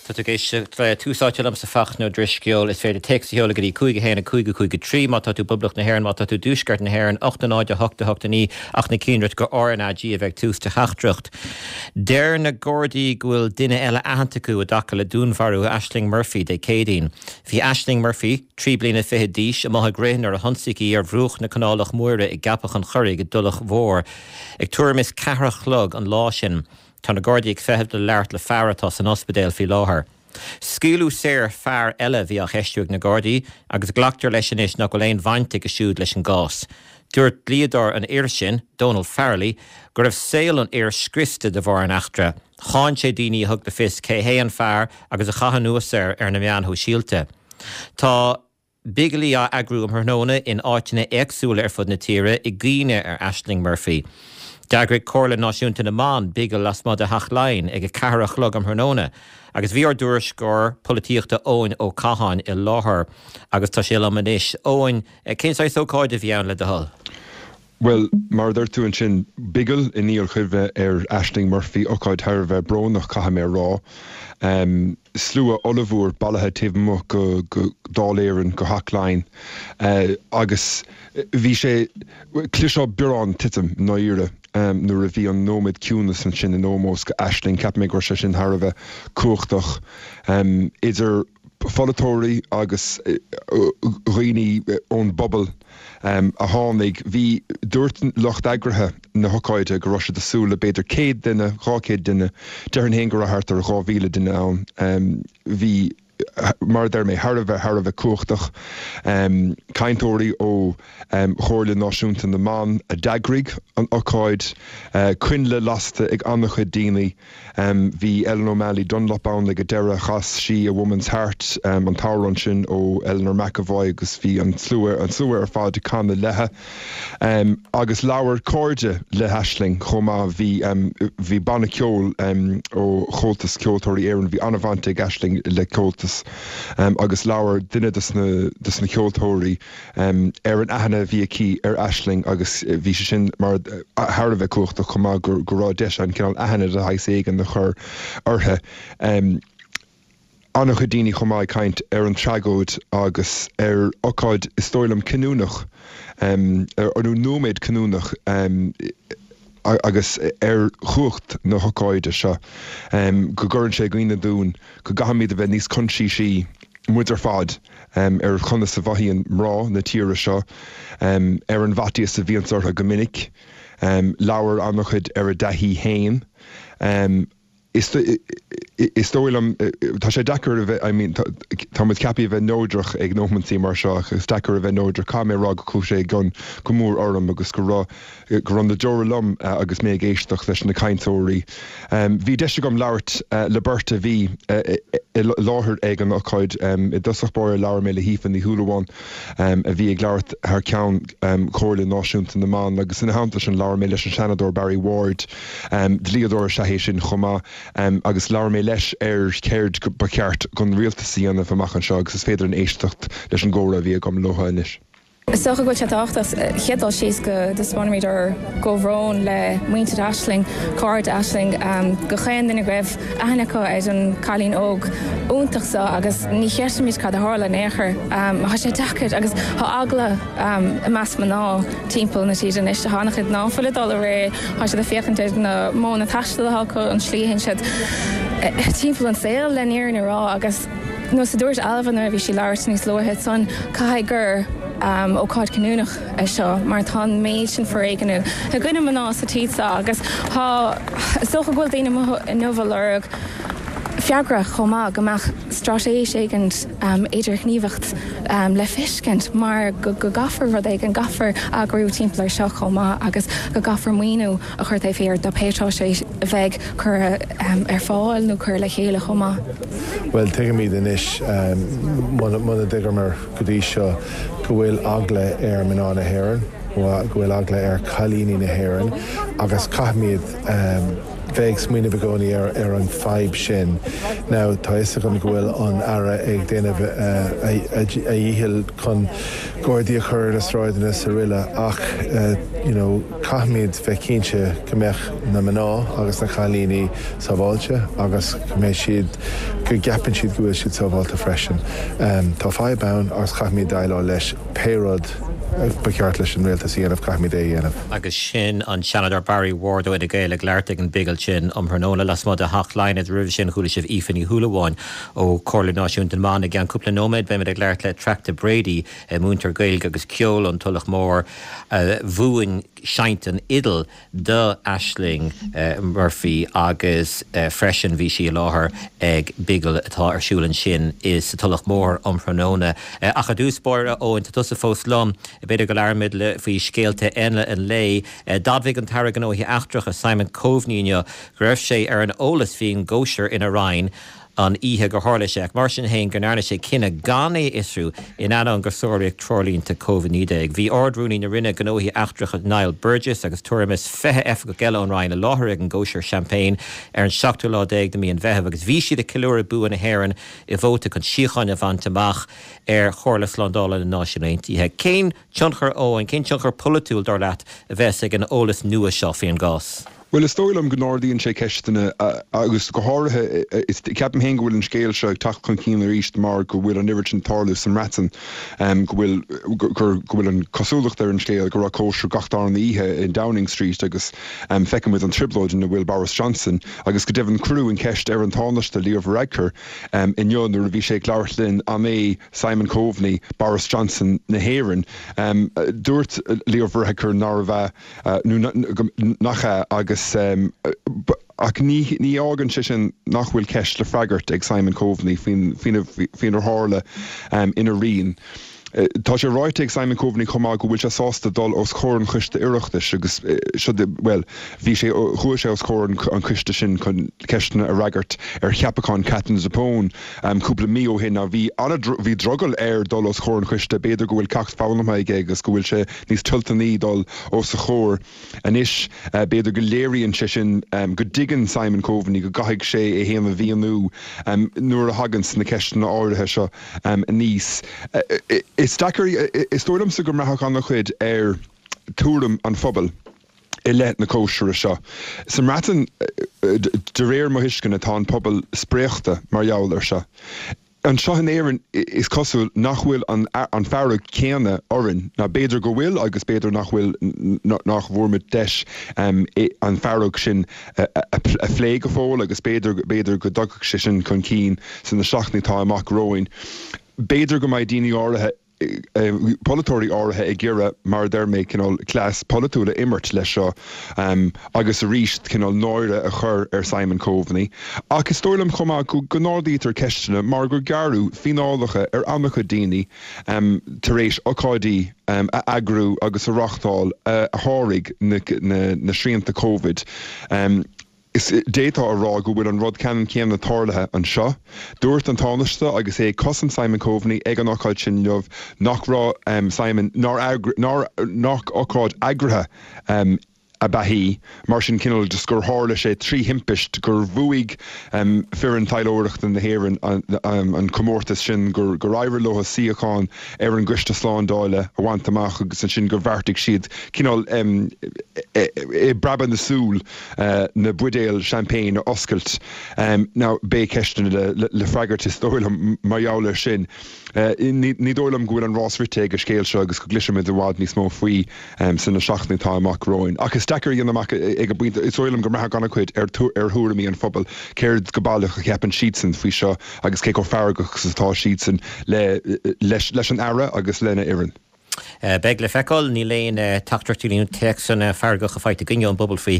Tá tú ag éisteacht le Tús Áite liomsa Fachtna Ó Drisceoil. Is féidir téacs a sheoladh go dtí 5 1 5 5 3 má tá tú i bPoblacht na hÉireann, má tá tú i dTuaisceart na hÉireann, 8 0 8 8 9 ach ná déan dearmad gur RnaG a bheidh ag tús do theachtaireacht. Deir na Gardaí go bhfuil duine eile aitheanta acu i dtaca le dúnmharú Ashling Murphy Dé Céadaoin. Bhí Ashling Murphy, 3 bliana fichead d'aois, amuigh ag rith nuair a hionsaíodh í ar bhruach na Canálach Móire i gCeapach an Churraigh i dTulach Mhór ag tuairim is ceathair a chlog an lá sin. Tá na Gardaí ag feitheamh le labhairt le fear atá san ospidéal faoi láthair. Scaoileadh saor fear eile a bhí á cheistiú ag na Gardaí agus glactar leis anois nach bhfuil aon bhaint aige siúd leis an gcás. Dúirt dlíodóir an fhir sin, Donal Farrelly, go raibh saol an fhir scriosta de bharr an eachtra. Cháin sé daoine a thug le fios cé hé an fear agus a chaith anuas air ar na meáin shóisialta. Tá. Bigilí á eagrú um thráthnóna in áiteanna éagsúla ar fud na tíre i gcuimhne ar Ashling Murphy. D'eagraigh Comhairle Náisiúnta na mBan bigil lasmuigh de Theach Laighean ag 4 a chlog um thráthnóna agus bhí ár dtuairisceoir polaitíochta Eoin Ó Catháin i láthair agus tá sé liom anois. Eoin, cén saghas ócáide a bhí ann le do thoil? Bhuel, mar a dúirt tú ansin, bigil i ndíol-chuimhne ar Ashling Murphy, ócáid thar a bheith brónach, caithfidh mé a rá. Slua ollmhór bailithe taobh amuigh go Dáil Éireann, go Theach Laighean, agus bhí sé, chloisfeá biorán titim, i ndáiríre, nuair a bhí an nóiméad ciúnas ansin in ómós go Ashling. Cheap mé go raibh sé sin thar a bheith cumhachtach. Idir. pholaiteoirí agus dhaoine ón bpobal a tháinig. Bhí, dúirt lucht eagraithe na hocáide go raibh siad ag súil le b'fhéidir 100 duine, 200 duine. Déarfainn féin go raibh thart ar 2,000 duine ann. Bhí, mar a deir mé, thar a bheith, thar a bheith cumhachtach. Cainteoirí ó Chomhairle Náisiúnta na mBan a d'eagraigh an ocáid, coinnle lasta ag an-chuid daoine. Bhí Ellen O'Malley Dunlop ann ag an deireadh. Chas sí A Woman's Heart, an t-amhrán sin ó Eleanor McEvoy agus bhí an slua, an slua ar fad ag canadh léithe. Agus labhair cairde le hAisling chomh maith. Bhí, bhí banna ceoil ó Chomhaltas Ceoltóirí Éireann, bhí an-bhaint ag Aisling le Comhaltas agus labhair duine de na ceoltóirí, ar an aithne a bhí aici ar Aisling agus bhí sé sin mar thar a bheith cumhachtach chomh maith go raibh deis ann cineál aithne de shaghas éigin a chur uirthi. An-chuid daoine chomh maith ag caint ar an tragóid agus ar ocáid is dóigh liom cinniúnach nó nóiméad cinniúnach agus ar chumhacht na hocáide seo go gcuireann sé i gcuimhne dúinn go gcaithfimid a bheith níos coinsiasaí muid ar fad, ar chonas a mhothaíonn mná na tíre seo, ar an bhfaitíos a bhíonns orthu go minic. Labhair an-chuid ar a dtaithí féin. Is dóigh liom, tá sé deacair a bheith, I mean, tá muid ceaptha a bheith neodrach ag nóimintí mar seo ach is deacair a bheith neodrach. Caithfidh mé a rá go chuaigh sé i gcion go mór orm agus go raibh, go raibh na deora liom agus mé ag éisteacht leis na cainteoirí. Bhí deis agam labhairt le beirt a bhí i láthair ag an ocáid. I dtosach báire labhair mé le hAoife Ní Shúilleabháin a bhí ag labhairt thar ceann Chomhairle Náisiúnta na mBan agus ina theannta sin labhair mé leis an Seanadóir Barry Ward, dlíodóir is ea é sin chomh maith, agus labhair mé leis ar céard ba cheart don rialtas a dhéanamh amach anseo agus is féidir linn éisteacht leis an gcomhrá a bhí agam leo anois. Is dócha go bhfuil sé tábhachtach chéad dul síos go dtaispeánfaimid ár gcomhbhrón le muintir Aisling, cairde Aisling, go chaon duine go raibh aithne acu ar an cailín óg iontach seo agus ní chreidimid cad a tharla in aon chor. Tá sé deacair agus tá eagla i measc mná timpeall na tíre anois. Tá an-chuid ná fuil ag dul ag rith, tá siad ag féachaint ar na modhanna taistil atá acu, an slí a théann siad timpeall an saol le an fhírinne a rá agus Nós a dúirt Ailbhe nuair a bhí sí ag labhairt níos luaithe ansan, caithfidh gur ócáid cinniúnach é seo mar tá an méid sin foréigin i gcoinne mná sa tír seo agus tá, is dócha go bhfuil daoine amuigh inniu ag lorg freagra chomh maith, go mbeadh straitéis éigin idirghníomhacht le feiscint mar go gcaithfear rud éigin, gcaithfear eagrú timpeall ar seo chomh maith agus go gcaithfear maoiniú a chur taobh thiar de pé straitéis a bheidh curtha ar fáil nó curtha le chéile chomh maith. Bhuel, tuigimid anois, muna dtuigeamar go dtí seo, go bhfuil eagla ar mná na héireann, go bhfuil eagla ar cailíní na héireann agus caithfimid. bheith ag smaoineamh i gcónaí ar an fadhb sin. Now, tá a fhios agam go bhfuil an Aire ag déanamh a dhíchill chun gardaí a chur ar na sráideanna is araile ach you know caithfimid bheith cinnte go mbeadh na mná agus na cailíní sábháilte agus go mbeidh siad, go gceapann siad go bhfuil siad sábháilte freisin. Tá fadhb ann agus caithfimid déileáil leis pé rud ba cheart leis an rialtas a dhéanamh, caithfimid é a dhéanamh. Agus sin an Seanadóir Barry Ward ó Fhine Gael ag labhairt ag an bhigil sin um thráthnóna lasmuigh de Theach Laighean. Agus roimhe sin chuala sibh Aoife Ní Shúilleabháin ó Chomhairle Náisiúnta na mBan. I gceann cúpla nóiméad beimid ag labhairt le Attracta Brady, múinteoir Gaeilge agus ceoil ón Tulach Mhór a mhúin seinnt an fhidil do Ashling Murphy agus freisin bhí sí i láthair ag bigil atá ar siúl ansin i sa Tulach Mhór um thráthnóna. Ach i dtús báire, a Eoin, tá tusa fós liom, b'fhéidir go labhróimid faoi scéalta eile an lae. D'admhaigh an tAire Gnóthaí Eachtracha Simon Coveney inniu go raibh sé ar an eolas faoin gcóisir ina roinn an oíche gur tharla sé, ach mar sin féin go ndearna sé cinneadh gan é a fhiosrú in ainneoin gur sáraíodh treoirlínte Covid-19. Bhí Ard-Rúnaí na Roinne Gnóthaí Eachtracha Niall Burgess agus tuairim is 20 oifigeach eile ón Roinn i láthair ag an gcóisir seaimpéin ar an seachtú lá déag de mhí an Mheithimh agus bhí siad ag ceiliúradh bua na hÉireann i vóta chun síocháin a bhaint amach ar Chomhairle Slándála na Náisiún Aontaithe. Cén tionchar, Eoin, cén tionchar polaitiúil, dar leat, a bheas ag an eolas nua seo faoin gcás? Bhuel, is dóigh liom go n-ardaíonn sé ceisteanna agus go háirithe, ceapaim féin go bhfuil an scéal seo ag teacht chun cinn arís mar go bhfuil an oiread sin ag tarlú sa mBreatain, go bhfuil, gur, go bhfuil an cosúlacht ar an scéal go raibh cóisir gach darna oíche in Downing Street agus feiceann muid an trioblóid ina bhfuil Boris Johnson agus go deimhin cuireadh an cheist ar an Tánaiste Leo Varadkar inniu nuair a bhí sé ag labhairt linn an é Simon Coveney Boris Johnson na hÉireann. Dúirt Leo Varadkar nárbh ea. nó nach ea, agus ach ní fhágann sé sin nach bhfuil ceist le freagairt ag Simon Coveney faoinar tharla ina roinn. Tá sé ráite ag Simon Coveney chomh maith go bhfuil sé sásta dul os comhair an Choiste Oireachtais agus seo, bhuel, bhí sé, chuaigh sé os comhair an choiste sin chun ceisteanna a fhreagairt ar cheapachán Katherine Zappone cúpla mí ó shin. Now bhí an, bhí drogall air dul os comhair an choiste, b'fhéidir go bhfuil ceacht foghlamtha aige agus go bhfuil sé níos toilteanaí dul os a chomhair anois. B'fhéidir go léiríonn sé sin go dtuigeann Simon Coveney go gcaithfidh sé é féin a mhíniú nuair a thaganns na ceisteanna áirithe seo aníos. Is deacair, is dóigh liomsa go mbraithfeadh an-chuid ar tuairim an phobail i leith na cóisire seo. Sa mBreatain, de réir mo thuisceana, tá an pobal spréachta mar gheall air seo. Anseo in Éirinn is cosúil nach bhfuil an fearg céanna orainn, nó b'fhéidir go bhfuil agus b'fhéidir nach bhfuil, nach bhfuair muid deis an fearg sin a phlé go fóill agus b'fhéidir, b'fhéidir go dtagfadh sé sin chun cinn sna seachtainí atá amach romhainn. B'fhéidir go mbeidh daoine áirithe, polaiteoirí áirithe ag iarraidh, mar a deir mé, cineál cleas polaitiúil a imirt leis seo agus arís cineál náire a chur ar Simon Coveney. Ach is dóigh liom chomh maith go n-ardaítear ceisteanna mar gur gearradh fíneálacha ar an-chuid daoine tar éis ocáidí a eagrú agus a reáchtáil a sháraigh na srianta Covid. Is d'fhéadfá a rá go bhfuil an rud ceannann céanna tarlaithe anseo. Dúirt an Tánaiste agus é ag cosaint Simon Coveney ag an ocáid sin inniu nach raibh Simon, nár nár nach ocáid eagraithe ab ea í, mar sin cineál just gur tharla sé trí thimpist gur bhuaigh foireann taidhleoireachta na hÉireann an comórtas sin, gur éirigh leo suíochán ar an gCoiste Slándála a bhaint amach agus ansin gur bheartaigh siad cineál i bpreabadh na súl na buidéil champagne a oscailt. Now, beidh ceisteanna le freagairt is dóigh liom mar gheall air sin. Ní dóigh liom go bhfuil an rás rite ag an scéal seo agus go gcloisfimid i bhfad níos mó faoi sna seachtainí atá amach romhainn. Ach is deacair a dhéanamh amach ag an bpointe, is dóigh liom go mbraithfeadh an-chuid ar thuairimí an phobail, céard go baileach a cheapann siadsan faoi seo agus cé chomh feargach is atá siadsan leis an Aire agus lena fhoireann. Beidh le feiceáil. Níl aon teachtaireachtaí nó téacsanna feargacha faighte againne ón bpobal faoi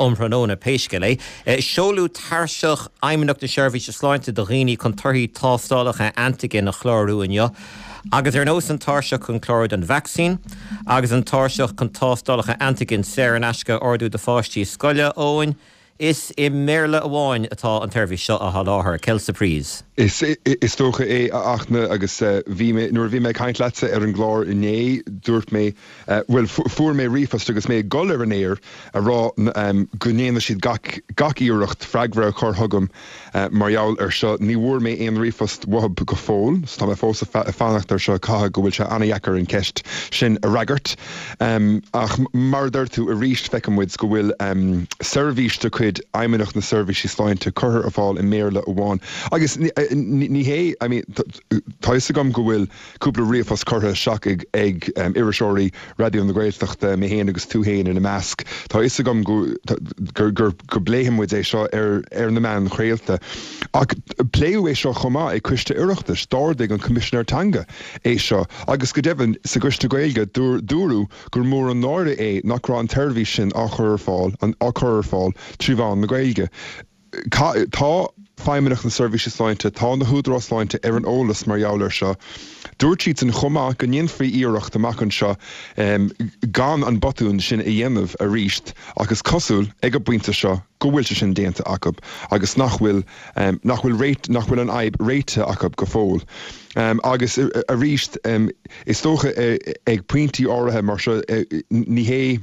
um thráthnóna, pé scéal é. Seoladh tairseach Fheidhmeannacht na Seirbhíse Sláinte do dhaoine chun torthaí tástálacha antaigin a chlárú inniu. Agus ar nós an tairseach chun clárú don vacsaín agus an tairseach chun tástálacha antaigin saor in aisce a ordú do pháistí scoile, Eoin. Is i mBéarla amháin atá an tseirbhís seo á sholáthar. Quelle surprise. Is dócha é, a Fhachtna, agus bhí mé, nuair a bhí mé ag caint leatsa ar an gclár inné, dúirt mé, bhuel, fuair mé ríomhphost agus mé ag dul ar an aer a rá go ndéanfaidh siad gach, gach iarracht freagra a chur chugam mar gheall ar seo. Ní bhfuair mé aon ríomhphost uathub go fóill, so tá mé fós ag fanacht ar seo. Caithfidh go bhfuil sé an-dheacair an cheist sin a fhreagairt. Ach mar a deir tú, arís feiceann muid go bhfuil seirbhís de chuid Fheidhmeannacht na Seirbhísí Sláinte curtha ar fáil i mBéarla amháin. Agus ní hé, I mean, tá fhios agam go bhfuil cúpla ríomhphost curtha isteach ag iriseoirí Raidió na Gaeltachta, mé féin agus tú féin ina measc. Tá fhios agam go go bpléifidh muid é seo ar na meáin chraolta. Ach pléadh é seo chomh maith ag Coiste Oireachtais. D'ardaigh an Coimisinéir Teanga é seo agus go deimhin sa gCoiste Gaeilge dúradh gur mór an náire é nach raibh an tseirbhís sin á chur ar fáil á cur ar fáil trí mheán na Gaeilge. Tá Feidhmeannacht na Seirbhíse Sláinte, tá na húdaráis sláinte ar an eolas mar gheall air seo. Dúirt siadsan chomh maith go ndéanfaí iarracht amach anseo gan an botún sin a dhéanamh arís ach is cosúil ag an bpointe seo go bhfuil sé sin déanta acu agus nach bhfuil nach bhfuil réit nach bhfuil an fhadhb réitithe acu go fóill. Agus arís is dócha ag pointí áirithe mar seo ní hé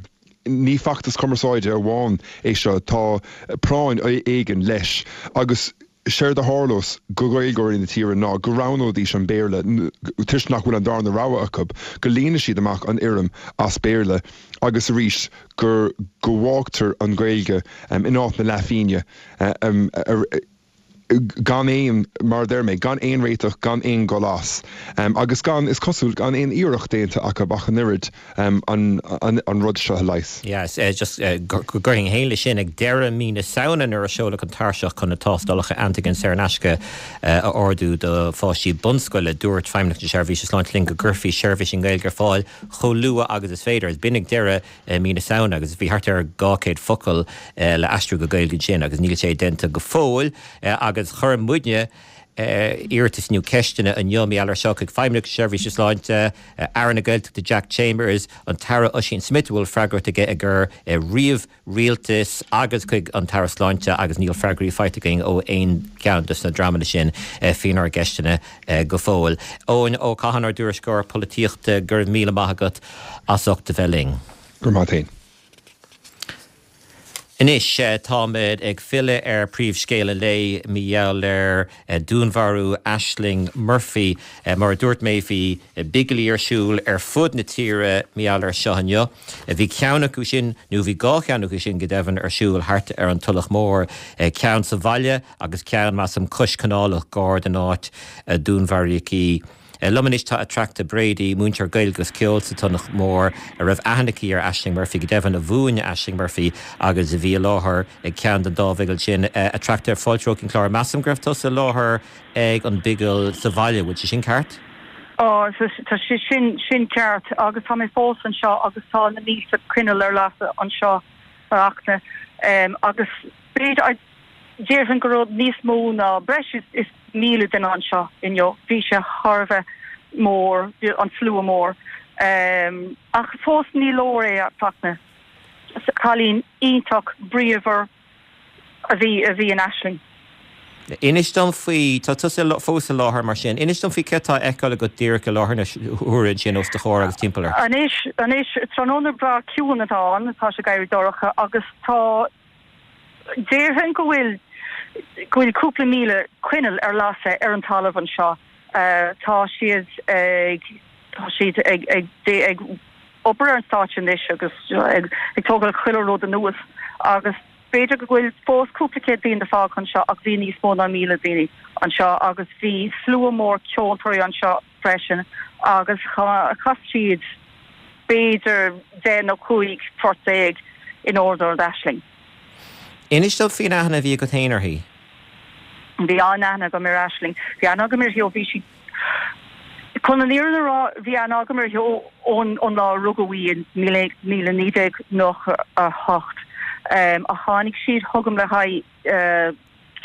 ní feachtas cumarsáide amháin é seo, tá práinn éigin leis agus séard a tharlós go Gaeilgeoirí na tíre ná go roghnóidís an Béarla toisc nach bhfuil an darna rogha acu, go líonfaidh siad amach an fhoirm as Béarla agus arís go go bhfágtar an Ghaeilge in áit na leathphingine. gan aon, mar a deir mé, gan aon réiteach, gan aon dhul as, agus gan, is cosúil, gan aon iarracht déanta acu ach an oiread an rud seo a leigheas. Yes, just go gcuirfinn féin leis sin, ag deireadh mí na Samhna nuair a seoladh an tairseach chun na tástálacha antigen saor in aisce a ordú do pháistí bunscoile, dúirt Feidhmeannacht na Seirbhíse Sláinte linn go gcuirfí seirbhís i nGaeilge ar fáil chomh luath agus is féidir. B'in ag deireadh mí na Samhna agus bhí thart ar 200 focal le aistriú go Gaeilge ansin agus níl sé déanta go fóill agus chuir muidne iarratas nó ceisteanna inniu mar gheall ar seo chuig Feidhmeannacht na Seirbhíse Sláinte, Aire na Gaeltachta Jack Chambers, an tAire Ossian Smyth a bhfuil freagracht aige i gcur ríomh-rialtas agus chuig an tAire Sláinte agus níl freagraí faighte againn ó aon cheann de na dreamanna sin faoinár gceisteanna go fóill. Eoin Ó Catháin, ár dtuairisceoir polaitíochta, go raibh míle maith agat. as ucht a bheith linn. Go raibh maith a't fhéin. Anois, táimid ag filleadh ar príomhscéal an lae mar gheall ar dúnmharú Ashling Murphy. Mar a dúirt mé, bhí bigilí ar siúl ar fud na tíre mar gheall ar seo inniu. Bhí ceann acu sin, nó bhí dhá cheann acu sin go deimhin, ar siúl thart ar an Tulach Mhór, ceann sa bhaile agus ceann, measaim, cois canálach gar don áit a dúnmharaíodh í. Liom anois tá Attracta Brady, múinteoir Gaeilge agus Ceoil sa Tulach Mhór, a raibh aithne aici ar Ashling Murphy, go deimhin a mhúin Ashling Murphy agus a bhí i láthair ag ceann den dá bhigil sin. Attracta, fáilte romhat chuig an chlár. Measaim go raibh tusa i láthair ag an bigil sa bhaile, bhfuil sé sin ceart? Ó, tá sé sin, sin ceart agus tá mé fós anseo agus tá na mílte coinneal ar lasadh anseo, a Fhachtna, agus b'fhéidir, Déarfainn go raibh níos mó ná breis is 1,000 duine anseo inniu. Bhí sé thar a bheith mór, an slua mór. Ach fós ní leor é, a Fhachtna. Cailín iontach bríomhar a bhí a bhí in Aisling. Inis dom faoi, tá tusa fós i láthair mar sin, inis dom faoi céard atá á fheiceáil agat díreach i láthair na huaire ansin os do chomhair agus timpeall ort. Anois, anois, tráthnóna breá ciúin atá ann, tá sé ag éirí dorcha agus tá, Déarfainn go bhfuil go bhfuil cúpla míle coinneal ar lasadh ar an talamh anseo. Tá siad ag tá siad ag ag ag obair ar an stáitse anois agus ag ag tógáil chuile rud anuas agus b'fhéidir go bhfuil fós cúpla céad duine fágtha anseo ach bhí níos mó ná 1,000 daoine anseo agus bhí slua mór ceoltóirí anseo freisin agus chas siad b'fhéidir 10 nó 15 phort in onóir d'Aisling. Inis dom faoin aithne a bhí agat féin uirthi. Bhí an-aithne agam ar Aisling. Bhí aithne agam uirthi ó bhí sí, chun an fhírinne a rá, bhí aithne agam uirthi ón lá a rugadh í in 1998. Ach tháinig sí chugam le haghaidh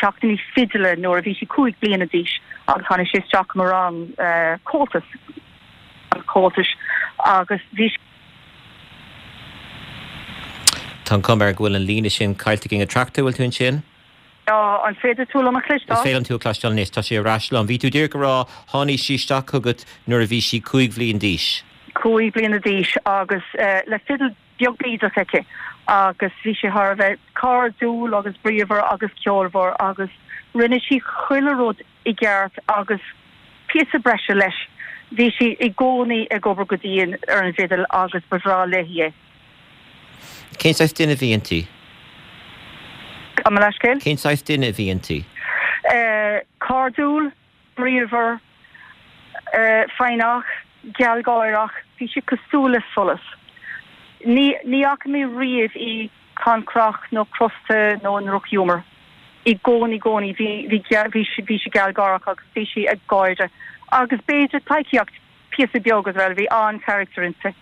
ceachtanna fidile nuair a bhí sí 5 bliana d'aois agus tháinig sí isteach i mo rang Comhaltas, Comhaltais agus bhí. Tá. Tá an chuma air go bhfuil an líne sin caillte againn. A Attracta, bhfuil tú ansin? Tá, an féidir tú liom a chloisteáil? Is féidir liom tú a chloisteáil anois, tá sé ar ais liom. Bhí tú díreach ag rá, tháinig sí isteach chugat nuair a bhí sí 5 bhliain d'aois. 5 bliana d'aois agus le fidil beag bídeach aici agus bhí sí thar a bheith cairdiúil agus bríomhar agus ceolmhar agus rinne sí chuile rud i gceart agus píosa breise leis. Bhí sí i gcónaí ag obair go dian ar an bhfidil agus ba bhreá léi é. Cén saghas duine a bhí inti? Gabh mo leithscéal? Cén saghas duine a bhí inti? Cairdiúil, bríomhar, foighneach, gealgháireach, bhí sí cosúil le solas. Ní ní fhaca mé riamh í cancrach nó crosta nó i ndrochghiúmar. I gcónaí, gcónaí bhí bhí bhí sí bhí sí gealgháireach agus bhí sí ag gáire agus b'fhéidir pleidhcíocht píosa beag as well, bhí an-charachtar inti.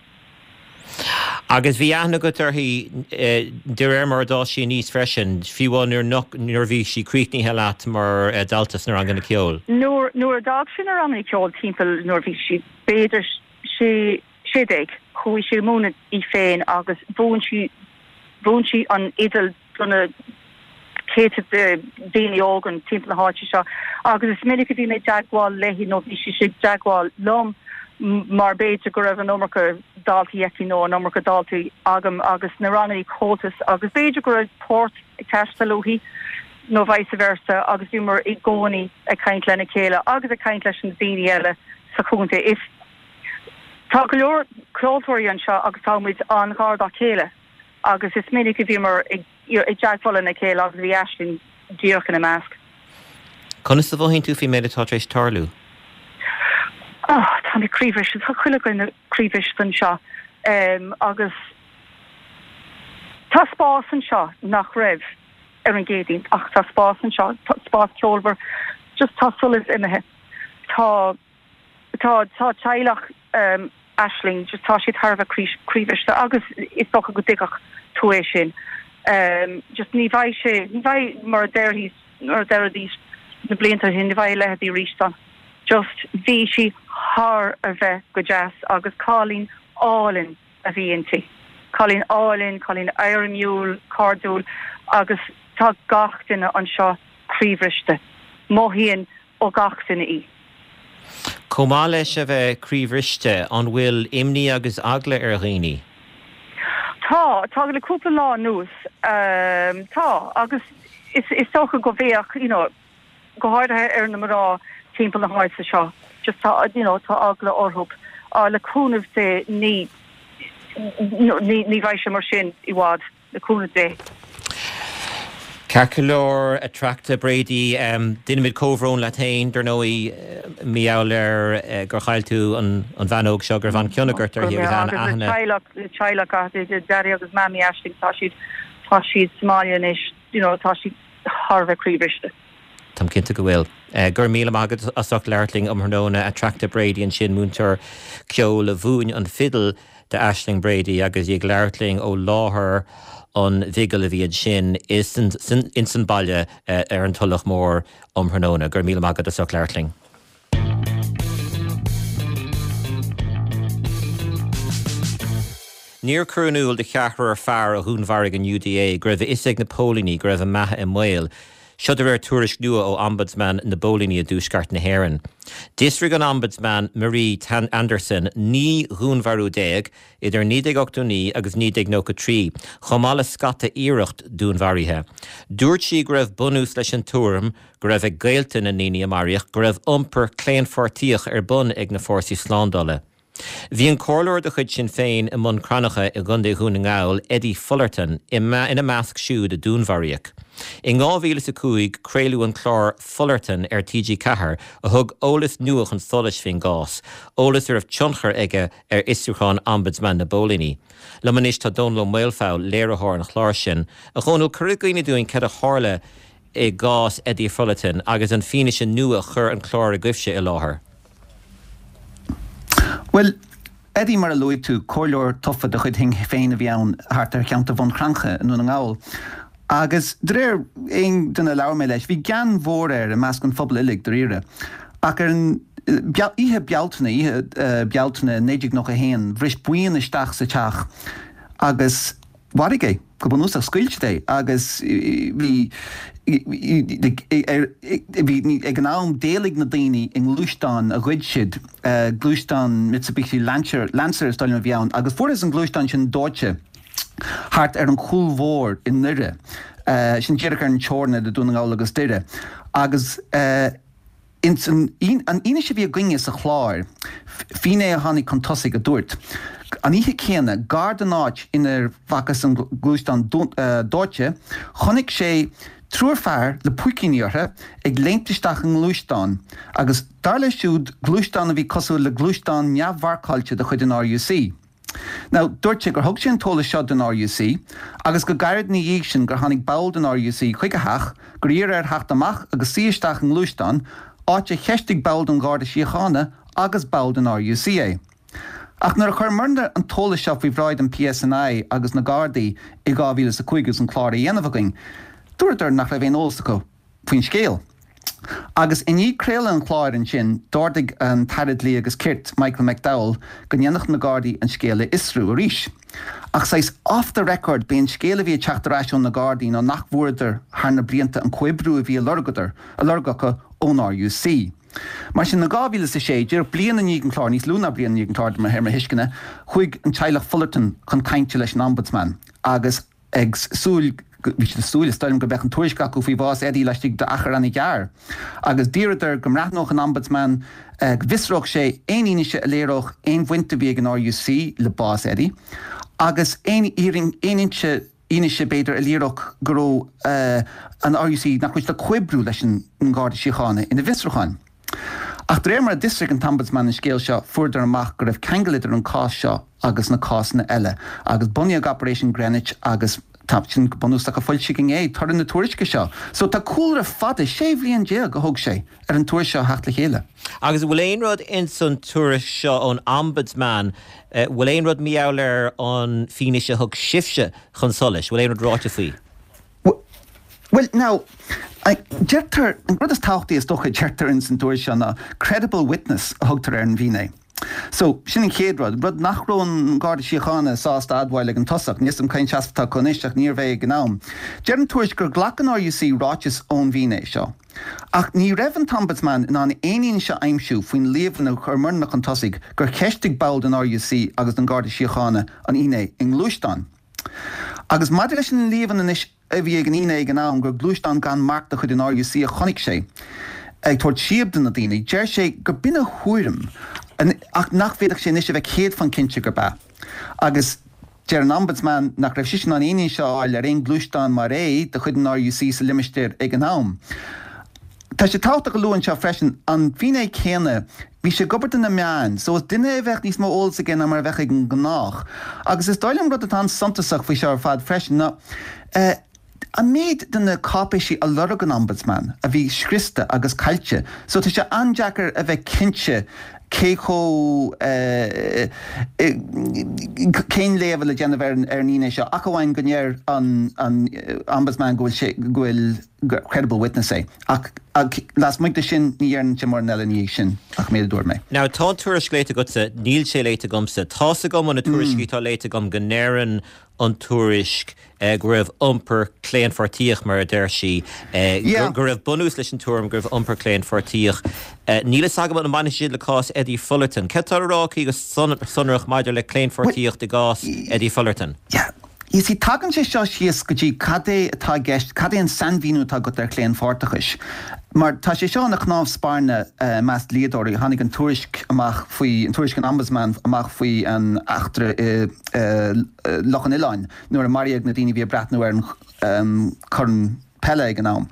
Agus bhí aithne agat uirthi de réir mar a d'fhás sí aníos freisin, fiú amháin nuair nach, nuair a bhí sí críochnaithe leat mar dhalta sna ranganna ceoil? Nuair, nuair a d'fhág sí na ranganna ceoil timpeall nuair a bhí sí b'fhéidir sé, 16, chuaigh sí ag múineadh í féin agus mhúin sí, mhúin sí an fhidil do na céadta de daoine óga timpeall na háite seo agus is minic a bhí mé i dteagmháil léi nó bhí sí i dteagmháil liom mar b'fhéidir go raibh an iomarca daltaí aici nó an iomarca daltaí agam agus na ranganna Comhaltas agus b'fhéidir go raibh port ag teastáil uaithi nó vice versa agus bhíomar i gcónaí ag caint lena chéile agus ag caint leis na daoine eile sa chontae. Is tá go leor ceoltóirí anseo agus tá muid an-ghar dá chéile. agus is minic a bhíomar i dteagmháil lena chéile agus bhí Aisling díreach ina measc. Conas a mhothaíonn tú faoin méid atá tar éis tarlú? Oh, tá mé croíbhriste, tá chuile dhuine croíbhriste anseo agus tá spás anseo nach raibh ar an gCéadaoin ach tá spás anseo, spás ceolmhar, just tá solas imithe. Tá. Tá, tá teaghlach Aisling, just tá siad thar a bheith croíbhriste agus is dócha go dtuigfeadh tú é sin. Just ní bheidh sé, ní bheidh mar a déarfaidís, mar a deiridís na blianta ó shin, ní bheidh a leithéidí arís ann. Just bhí sí thar a bheith go deas agus cailín álainn a bhí inti. Cailín álainn, cailín éirimiúil, cairdiúil agus tá gach duine anseo croíbhriste. Mothaíonn ó gach duine í. Chomh maith leis a bheith croíbhriste, an bhfuil imní agus eagla ar dhaoine? Tá, tá le cúpla lá anuas, tá, agus is dócha go bheadh, you know, go háirithe ar na mná timpeall na háite seo, just tá, you know, tá eagla orthu. Le cúnamh Dé ní, ní, ní bheidh sé mar sin i bhfad. Le cúnamh Dé. Ceart go leor, Attracta Brady, déanaimid comhbhrón leat féin, dar ndóigh, mar gheall ar gur chaill tú an bhean óg seo, go raibh an-chion agat uirthi agus an-aithne. Agus le teaghlach, teaghlach, Daddy agus Mammy Aisling, tá siad, tá siad sa mbaile anois, you know, tá siad thar a bheith croíbhriste. Táim cinnte go bhfuil. Go raibh míle maith agat as ucht labhairt linn um thráthnóna. Attracta Brady ansin, múinteoir ceoil a mhúin an fidil d'Aisling Brady agus í ag labhairt linn ó láthair an bhigil a bhí ansin ins an baile ar an Tulach Mhór um thráthnóna. Go raibh míle maith agat as ucht labhairt linn. Níor cuireadh in iúl do cheathrar fear a dhúnmharaigh an UDA go raibh a fhios ag na póilíní go raibh a mbeatha i mbaol. Seo de réir tuairisc nua ó Ombudsman na bPóilíní i dTuaisceart na hÉireann. D'fhiosraigh an Ombudsman Marie Anderson 19 dhúnmharú idir 1989 agus 1993, chomh maith le scata iarracht dúnmharaithe. Dúirt sí go raibh bunús leis an tuairim go raibh ag gaolta na ndaoine a maraíodh go raibh iompar claonpháirtíoch ar bun ag na fórsaí slándála. Bhí an comhairleoir de chuid Sinn Féin i mBun Cranncha i gContae Dhún na nGall, Eddie Fullerton, ina measc siúd a dúnmharaíodh. In 2005 craoladh an clár Fullerton ar TG4 a thug eolas nua chun solais faoin gcás, eolas a raibh tionchar aige ar fhiosrúchán Ombudsman na bPóilíní. Liom anois tá Dónal Ó Maolfabhail, léiritheoir an chláir sin. A Dhónaill, cuir i gcuimhne dúinn cad a tharla i gcás Eddie Fullerton agus an fianaise nua a chuir an clár agaibhse i láthair. Bhuel, Eddie, mar a luaigh tú, comhairleoir tofa de chuid Shinn Féin a bhí ann thart ar cheantar Bhun Cranncha i nDún na nGall. Agus de réir aon duine a labhair mé leis, bhí gean mhór air i measc an phobail uilig, dáiríre. Ach ar an oíche Bealtaine, oíche Bealtaine 1991, bhris buíon isteach sa teach agus. mharaigh é, go bunúsach, scaoil siad é agus bhí, bhí, ag an am d'éalaigh na daoine i ngluaisteán a ghoid siad, gluaisteán Mitsubishi Lancer, Lancer is dóigh liom a bhí ann, agus fuarthas an gluaisteán sin dóite thart ar an Chúil Mhór i nDoire, sin díreach ar an teorainn idir Dún na nGall agus Doire, agus. Ins an fhianaise a bhí againne sa chlár, finné a tháinig chun tosaigh a dúirt, an oíche chéanna, gar don áit inar bhfacthas an gluaisteán dóite, chonaic sé triúr fear le púicíní orthu ag léimt isteach i ngluaisteán agus, dar leis siúd, gluaisteán a bhí cosúil le gluaisteán neamh-mharcáilte de chuid an RUC. Now, dúirt sé gur thug sé an t-eolas seo don RUC agus go gairid ina dhiaidh sin gur tháinig ball den RUC chuig a theach, gur iarr air theacht amach agus suí isteach i ngluaisteán, áit a cheistigh ball den Gharda Síochána agus ball den RUC é. Ach nuair a chuir muidne an t-eolas seo faoi bhráid an PSNI agus na Gardaí i 2005 agus an clár á dhéanamh againn, dúradar nach raibh aon eolas acu. faoin scéal. Agus i ndiaidh craoladh an chláir ansin, d'ordaigh an tAire Dlí agus Cirt, Michael McDowell, go ndéanfadh na Gardaí an scéal a fhiosrú arís. Ach saghas off the record, b'é an scéal a bhí ag teacht ar ais ó na Gardaí ná nach bhfuaireadar thar na blianta an comhoibriú a bhí á lorgadar, á lorg acu ón RUC. Mar sin, in 2006, díreach bliain i ndiaidh an chláir, níos lú ná bliain i ndiaidh an chláir de réir mo thuisceana, chuaigh an teaghlach Fullerton chun cainte leis an Ombudsman agus, ag súil, bhí siad ag súil, is dóigh liom, go mbeadh an tuairisc acu faoi bhás Eddie laistigh d'achar an-ghearr. Agus d'iarradar go mbreathnódh an Ombudsman, go bhfiosródh sé aon fhianaise a léireodh aon bhaint a bhí ag an RUC le bás Eddie, agus aon aon fhianaise, b'fhéidir, a léireodh go raibh an RUC, nach raibh siad ag comhoibriú leis an nGarda Síochána ina bhfiosrúcháin. Ach de réir mar a d'fhiosraigh an tOmbudsman an scéal seo, fuaireadar amach go raibh ceangal idir an cás seo agus na cásanna eile, agus bunaíodh Operation Greenwich agus tá sin go bunúsach a foilsíodh inné, toradh na tuairisce seo. So tá cúlra fada, 16 bhliain a thóg sé ar an tuairisc seo a theacht le chéile. Agus an bhfuil aon rud ins an tuairisc seo ón Ombudsman, bhfuil aon rud mar gheall ar an fianaise a thug sibhse chun solais, bhfuil aon rud ráite faoi? Bhuel, now, deirtear, an rud is tábhachtaí is dócha a deirtear ins an tuairisc seo ná credible witness a thugtar ar an bhfinné. So, sin an chéad rud, rud nach raibh an Garda Síochána sásta a admháil ag an tosach. Níl 'fhios a'm cén seasamh atá acu anois ach níorbh é ag an am. Deir an tuairisc gur ghlac an RUC ráiteas ón bhfinné seo. Ach ní raibh an tOmbudsman in ann aon fhianaise a aimsiú faoin líomhain a chuir muidne chun tosaigh gur cheistigh ball den RUC agus den Gharda Síochána an fhinné i ngluaisteán. Agus maidir leis an líomhain anois a bhí ag an fhinné ag an am gur gluaisteán gan marc de chuid an RUC a chonaic sé ag tabhairt síob do na daoine, deir sé gur b'in a thuairim ach nach bhféadfadh sé anois a bheith céad faoin cinnte gurb ea. Agus deir an Ombudsman nach raibh sise in ann aon fhianaise a fháil ar aon ghluaisteán mar é de chuid an RUC sa limistéar ag an am. Tá sé tábhachtach a lua anseo freisin, an finné céanna, bhí sé ag obair do na meáin, so is duine é a bheadh níos mó eolas aige ná mar a bheadh ag an ngnách. Agus is dóigh liom rud atá an-suntasach faoi seo ar fad freisin ná an méid de na cáipéisí a lorg an Ombudsman a bhí scriosta agus caillte. So tá sé an-deacair a bheith cinnte cé chomh, cén léamh le déanamh ar an fhinné seo, ach amháin go ndeir an Ombudsman go bhfuil sé, go bhfuil. gur credible witness é. Ach lasmuigh de sin, ní dheireann sé mórán eile ina dhiaidh sin ach an méid a dúirt mé. Now, tá an tuairisc léite agatsa, níl sé léite agamsa. Tá's agam ó na tuairiscí atá léite agam go ndeireann an tuairisc go raibh iompar claonpháirtíoch, mar a deir sí, go raibh bunús leis an tuairim go raibh iompar claonpháirtíoch. Níl fhios agam an mbaineann sé le cás Eddie Fullerton. Céard atá le rá aici go sonrach maidir le claonpháirtíocht i gcás Eddie Fullerton? Yeah. You see, tagann sé seo síos go dtí cad é atá i gceist, cad é an sainmhíniú atá agat ar chlaonpháirteachais. Mar tá sé seo ina chnámh spairne i measc dlíodóirí, tháinig an tuairisc amach faoi, an tuairisc an Ombudsman amach faoi an eachtra i Loch an Oileáin nuair a maraíodh na daoine a bhí ag breathnú ar an chorn peile ag an am.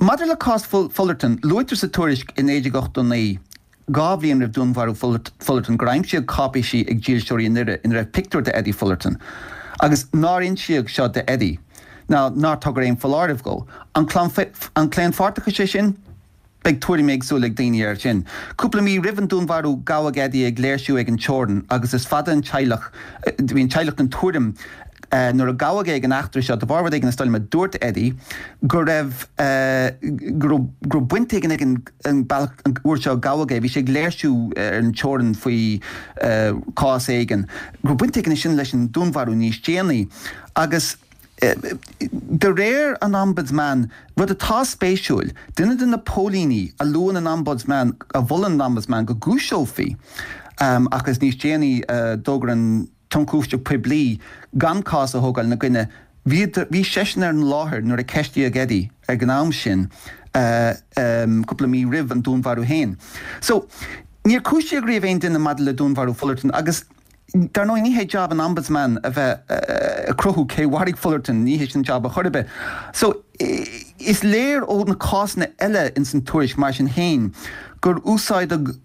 Maidir le cás Fullerton, luaitear sa tuairisc i 1989, 2 bhliain roimh dúnmharú Fullerton gur aimsíodh cáipéisí ag dílseoirí i nDoire ina raibh pictiúr d'Eddie Fullerton agus nár insíodh seo d'Eddie ná nár tugadh aon foláireamh dhó. An claonpháirteachas é sin? Beidh tuairim éagsúil ag daoine air sin. Cúpla mí roimh an dúnmharú gabhadh Eddie ag léirsiú ag an teorainn agus is fada an teaghlach, bhí an teaghlach den tuairim. Nuair a gabhadh é ag an eachtra seo, de bharr rud éigin is dóigh liom a dúirt Eddie, go raibh, go raibh, go raibh baint éigin ag an, an bealach, an uair seo a gabhadh é, bhí sé ag léirsiú ar an teorainn faoi chás éigin, go raibh baint éigin sin leis an dúnmharú níos déanaí. Agus de réir an Ombudsman, rud atá spéisiúil, duine de na póilíní a luann an Ombudsman, a mholann an Ombudsman go gcúiseofaí, agus níos déanaí d'fhógair an tIonchúiseamh Poiblí gan cás a thógáil ina gcoinne, bhí, bhí seisean ar an láthair nuair a ceistíodh Eddie ag an am sin, cúpla mí roimh an dúnmharú féin. So, níor cúisíodh riamh aon duine maidir le dúnmharú Fullerton agus, Dar ndóigh, ní hé jab an Ombudsman a bheith ag cruthú cé mharaigh Fullerton, ní hé sin jab a chor ar bith. So, is léir ó na cásanna eile ins an tuairisc, mar sin féin, gur úsáideadh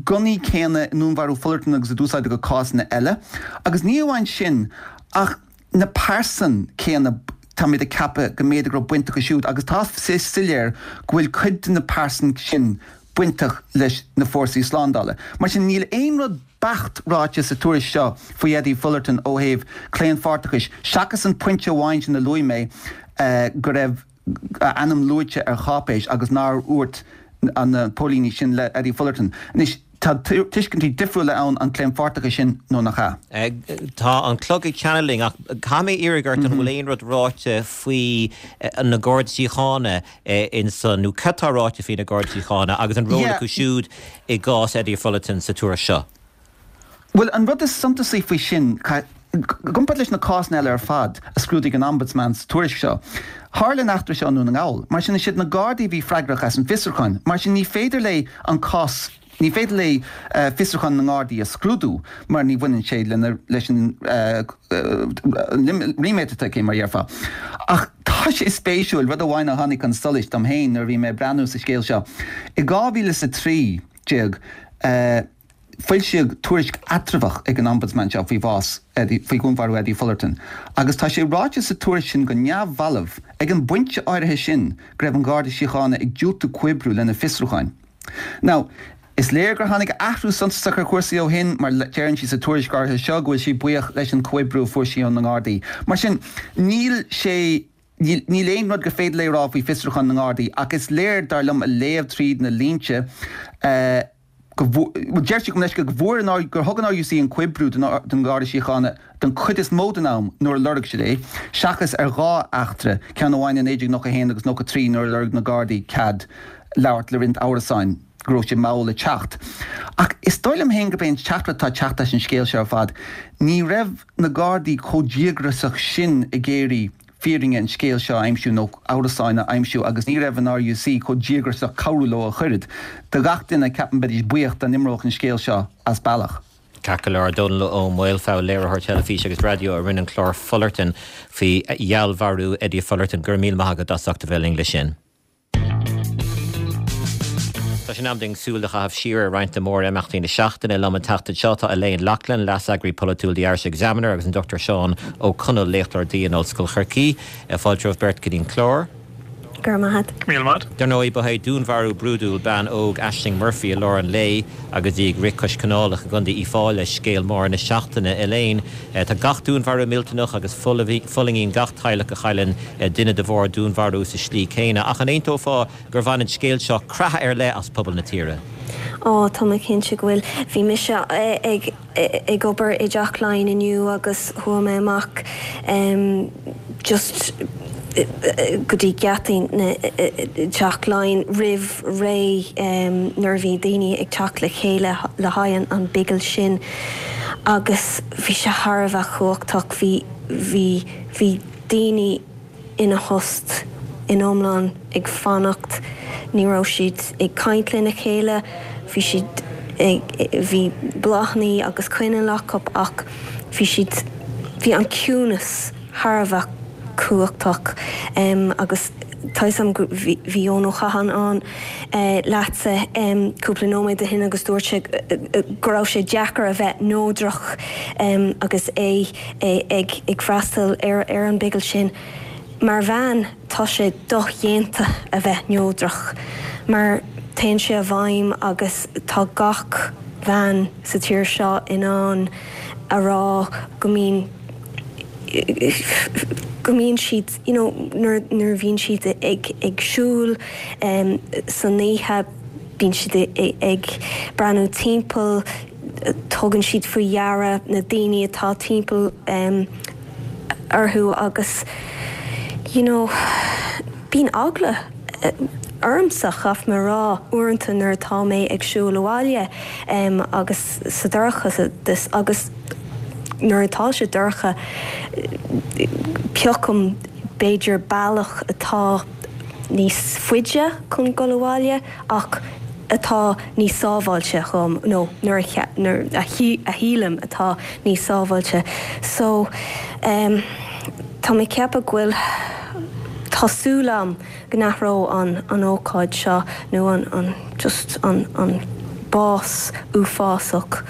gunnaí céanna i ndúnmharú Fullerton agus a d'úsáideadh i cásanna eile. Agus ní amháin sin, ach na pearsain céanna, táimid ag ceapadh go mb'fhéidir go raibh baint acu siúd, agus tá sé soiléir go bhfuil cuid de na pearsain sin bainteach leis na fórsaí slándála. Mar sin, níl aon rud beacht ráite sa tuairisc seo faoi Eddie Fullerton ó thaobh claonpháirteachais, seachas an pointe amháin sin a luaigh mé, go raibh a ainm luaite ar cháipéis agus nár dhúirt na póilíní sin le Eddie Fullerton. Anois, tá tuiscintí difriúla ann an claonpháirteachas sin nó nach ea. Tá an clog ag teannadh linn ach caithfidh mé iarraidh ort an bhfuil aon rud ráite faoi na Gardaí Síochána insan, nó cad tá ráite faoi na Gardaí Síochána agus an ról acu siúd i gcás Eddie Fullerton sa tuairisc seo? Bhuel, an rud is suntasaí faoi sin, i gcomparáid leis na cásanna eile ar fad a scrúdaigh an Ombudsman sa tuairisc seo, tharla an eachtra seo i nDún na nGall. Mar sin, is iad na Gardaí a bhí freagrach as an bhfiosrúchán. Mar sin, ní féidir léi an cás Ní féidir léi fiosrúchán na nGardaí a scrúdú mar ní bhaineann sé lena, leis an ríméad atá aici, mar a dhéarfá. Ach tá sé spéisiúil, rud amháin a tháinig chun solais dom féin nuair a bhí mé ag breathnú sa scéal seo. I 2013, foilsíodh tuairisc eatramhach ag an Ombudsman seo faoi bhás Eddie, faoi dhúnmharú Eddie Fullerton agus tá sé ráite sa tuairisc sin go neamhbhalbh, ag an bpointe áirithe sin, go raibh an Garda Síochána ag diúltú comhoibriú lena fiosrúcháin. Now, is léir gur tháinig athrú suntasach ar chúrsaí ó shin, mar deireann sí sa tuairisc áirithe seo go bhfuil sí buíoch leis an chomhoibriú a fuair sí ó na nGardaí. Mar sin, níl sé, níl, níl aon rud gur féidir léi a rá faoi fiosrúchán na nGardaí, ach is léir, dar liom, a léamh tríd na línte, go bhfuair, bhuel, deir sí gabh mo leithscéal, go bhfuair an, gur thug an RUC an comhoibriú don Gharda Síochána den chuid is mó den am nuair a lorg siad é, seachas ar dhá eachtra, ceann amháin i 1991 agus 93 nuair a lorg na Gardaí cead labhairt le roinnt amhrasáin go raibh sé mall ag teacht. Ach is dóigh liom féin gurb é an teachtaireacht atá ag teacht as an scéal seo ar fad, ní raibh na Gardaí chomh díograiseach sin ag iarraidh fírinne an scéil seo a aimsiú nó amhrasáin a aimsiú agus ní raibh an RUC chomh díograiseach cabhrú leo ach oiread. Do gach duine, ceapaim, beidís buíoch dá n-imeodh an scéal seo as bealach. Ceart go leor, Dónall Ó Maolfabhail, léiritheoir teilifíse agus raidió a rinne an clár Fullerton faoi fheallmharú Eddie Fullerton. Go raibh míle maith agat as ucht a bheith linn leis sin. Tá sé in am dúinn súil a chaitheamh siar ar roinnt de mhór-imeachtaí na seachtaine. Liom an tseachtain seo tá Elaine Loughlin, Leas-Eagraí Polaitiúil The Irish Examiner agus an Dr Seán Ó Conaill, Léachtóir Dlí in Ollscoil Chorcaí. Fáilte romhaibh beirt go dtí an clár. Go raibh maith agat. Míle maith. Dar ndóigh, ba é dúnmharú brúidiúil bean óg Ashling Murphy i lár an lae agus í ag rith cois canálach i gContae Uíbh Fhailí scéal mór na seachtaine. Elaine, tá gach dúnmharú millteanach agus fulaingíonn gach teaghlach a chailleann duine de bharr dúnmharú sa slí céanna. Ach an aontófá gur bhain an scéal seo creathadh ar leith as pobal na tíre? Ó, tá mé cinnte go bhfuil. Bhí mise ag ag obair i dTeach Laighean inniu agus chuaigh mé amach just go dtí geataí na Teach Laighean roimh ré nuair a bhí daoine ag teacht le chéile le haghaidh an bigil sin agus bhí sé thar a bheith cumhachtach. Bhí, bhí, bhí. daoine ina thost in iomlán ag fanacht, ní raibh siad ag caint lena chéile, bhí siad ag, bhí bláthanna agus coinneal acu ach bhí siad, bhí an ciúnas thar a bheith cumhachtach agus tá 'fhios a'm go, bhí, bhí Eoin Ó Catháin ann leatsa cúpla nóiméad ó shin agus dúirt sé go raibh sé deacair a bheith neodrach agus é ag freastal ar an bigil sin. Mar bhean, tá sé dodhéanta a bheith neodrach mar téann sé i bhfeidhm agus tá gach bean sa tír seo in ann a rá go mbíonn. Go mbíonn siad, you know, nuair a bhíonn siad ag ag siúl san oíche, bíonn siad ag breathnú timpeall, tugann siad faoi deara na daoine atá timpeall orthu agus, you know, bíonn eagla ormsa, chaithfidh mé a rá, uaireanta nuair atá mé ag siúl abhaile agus sa dorchadas agus nuair atá sé dorcha piocaim b'fhéidir bealach atá níos faide chun dul abhaile ach atá níos sábháilte dhom nó nuair a nuair a shílim atá níos sábháilte. So em tá mé ag ceapadh go bhfuil tá súil a'm go n-athróidh an an ócáid seo nó an an just an an bás uafásach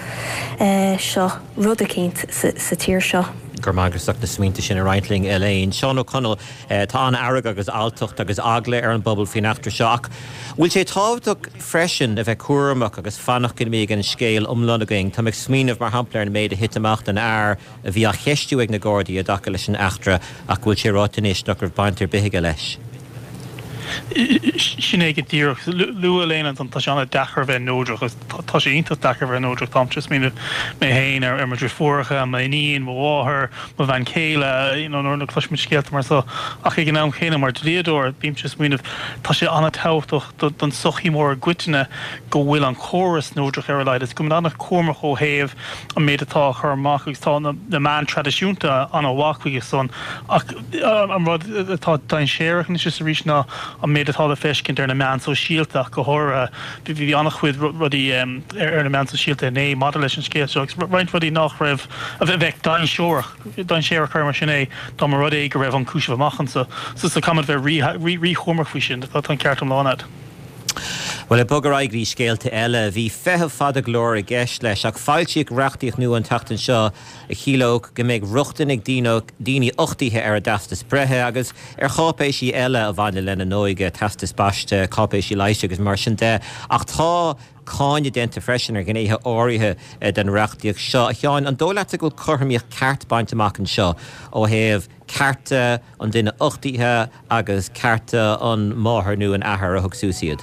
eh seo rud eicínt sa sa tír seo. Go raibh maith agat as ucht na smaointe sin a roinnt linn Elaine. Seán Ó Conaill, Tá an-fhearg agus alltacht agus eagla ar an bpobal faoin eachtra seo ach bhfuil sé tábhachtach freisin a bheith cúramach agus fanacht go mbeidh an scéal iomlán againn? Tá mé ag smaoineamh mar shampla ar an méid a thit amach don fhear a bhí á cheistiú ag na Gardaí i dtaca leis an eachtra ach go bhfuil sé ráite anois nach raibh baint ar bith aige leis. Sin é go díreach. Luaigh Elaine ansan, tá sé an-deacair a bheith neodrach agus tá sé iontach deacair a bheith neodrach. Táimse ag smaoineamh mé féin ar mo dhriofúracha, m'iníon, mo mháthair, mo bhean chéile, you know nuair a chloisimid scéalta mar seo. Ach ag an am chéanna, mar dhlíodóir, bímse ag smaoineamh, tá sé an-tábhachtach don tsochaí mór i gcoitinne go bhfuil an córas neodrach ar a laghad agus go bhfuil muid an-chúramach ó thaobh an méid atá á chur amach agus tá na meáin traidisiúnta an-mhaith chuige san ach an rud atá dainséarach anois is arís ná an méid atá le feiscint ar na meáin sóisialta ach go háirithe. Bhí an-chuid rudaí ar na meáin sóisialta inné maidir leis an scéal seo agus roinnt rudaí nach raibh, a bheadh dainséarach, dainséarach cuir mar sin é, dá mba rud é go raibh an cúiseamh amach anso. So caithfimid bheith rí-chúramach faoi sin. Tá an ceart iomlán agat. Bhuel, ag bogadh ar aghaidh go dtí scéalta eile, bhí feitheamh fada go leor i gceist leis, ach foilsíodh reachtaíocht nua an tseachtain seo a chiallódh go mbeidh rochtain ag daoine uchtaithe ar a dteastas breithe agus ar cháipéisí eile a bhaineann lena n-óige, teastais baiste, cáipéisí leighis agus mar sin de. Ach tá cáineadh déanta freisin ar ghnéithe áirithe den reachtaíocht seo. A Sheáin, an dóigh leatsa go bhfuil cothromaíocht ceart bainte amach anseo ó thaobh cearta an duine uchtaithe agus cearta an mháthair nó an athar a thug suas iad?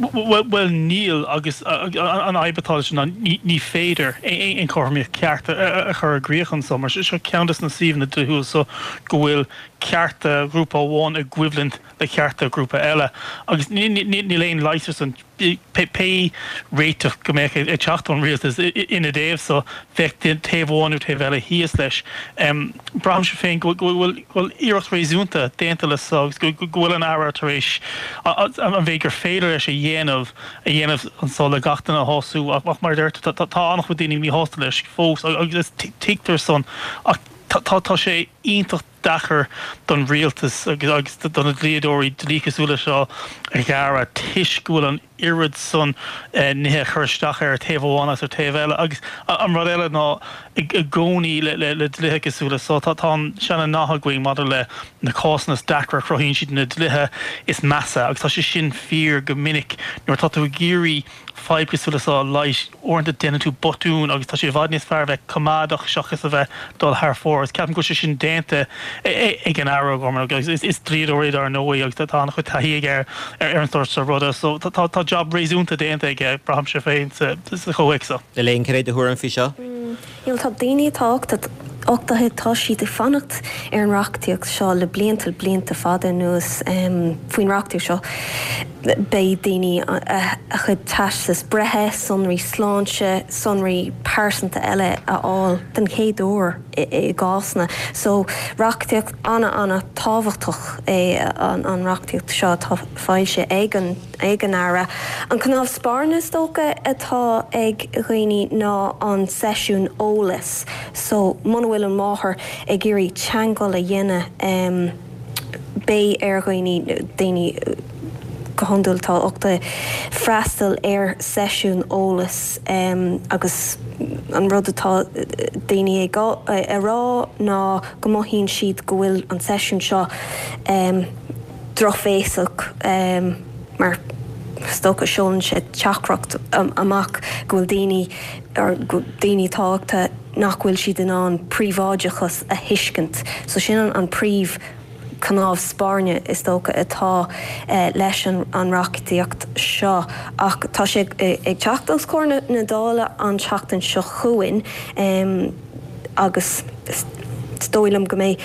Bhuel, níl, agus an fhadhb atá leis ná ní féidir aon chothromaíocht ceart a chur i gcrích anseo, mar seo ceann de na suíomhanna dlíthiúil so go bhfuil cearta ghrúpa amháin i gcoimhlint le cearta grúpa eile, agus níl aon leigheas ar san. Pé réiteach go mbeadh ag teacht ón rialtas ina dtaobh so, bheadh taobh amháin nó taobh eile thíos leis. Braithimse féin go bhfuil iarracht réasúnta déanta le so agus go bhfuil an Aire tar éis an mhéid gur féidir leis a dhéanamh a dhéanamh anso le gach duine a shású ach mar a deir tú tá an-chuid daoine míshásta leis fós agus tuigtear san ach tá sé iontach deacair don rialtas agus do na dlíodóirí dlí cosúil leis seo a ghearradh toisc go bhfuil an oiread san nithe ag cur isteach air ar taobh amháin agus ar taobh eile. Agus an rud eile ná i gcónaí le dlíthe cosúil leis seo, tá an seana-nath againn maidir le na cásanna is deacra, cruthaíonn siad na dlíthe is measa agus tá sé sin fíor go minic nuair atá tú ag iarraidh fadhb cosúil le seo a leigheas, uaireanta déanann tú botún agus tá sé i bhfad níos fearr a bheith coimeádach seachas a bheith dul thar fóir agus ceapaim go bhfuil sé sin déanta ag an Aire O'Gorman agus is dlíodóir é dar ndóigh agus tá an-chuid taithí aige ar an sórt seo ruda so tá jab réasúnta déanta aige braithimse féin sa chomhthéacs seo. Elaine, cad é do thuairim faoi seo? Bhuel tá daoine atá uchtaithe, tá siad ag fanacht ar an reachtaíocht seo le blianta, blianta fada anuas. Faoin reachtaíocht seo beidh daoine a chuid teastas breithe, sonraí sláinte, sonraí pearsanta eile a fháil den chéad uair i gcásanna. So reachtaíocht ana-ana tábhachtach é an reachtaíocht seo atá foilsithe ag an. ag an Aire. An cnámh spairne is dócha atá ag dhaoine ná an seisiún eolais so muna bhfuil an mháthair ag iarraidh teagmháil a dhéanamh beidh ar dhaoine, daoine go hiondúil atá uchtaithe, freastal ar seisiún eolais agus an rud atá daoine ag a rá ná go mothaíonn siad go bhfuil an seisiún seo drochbhéasach mar is dócha seolann sé teachtaireacht amach go bhfuil daoine, daoine atá uchtaithe. nach bhfuil siad in ann príobháideachas a thuiscint. So sin an príomh cnámh spairne is dócha atá leis an reachtaíocht seo. Ach tá sé ag teacht os comhair na Dála an tseachtain seo chugainn agus is dóigh liom go mbeidh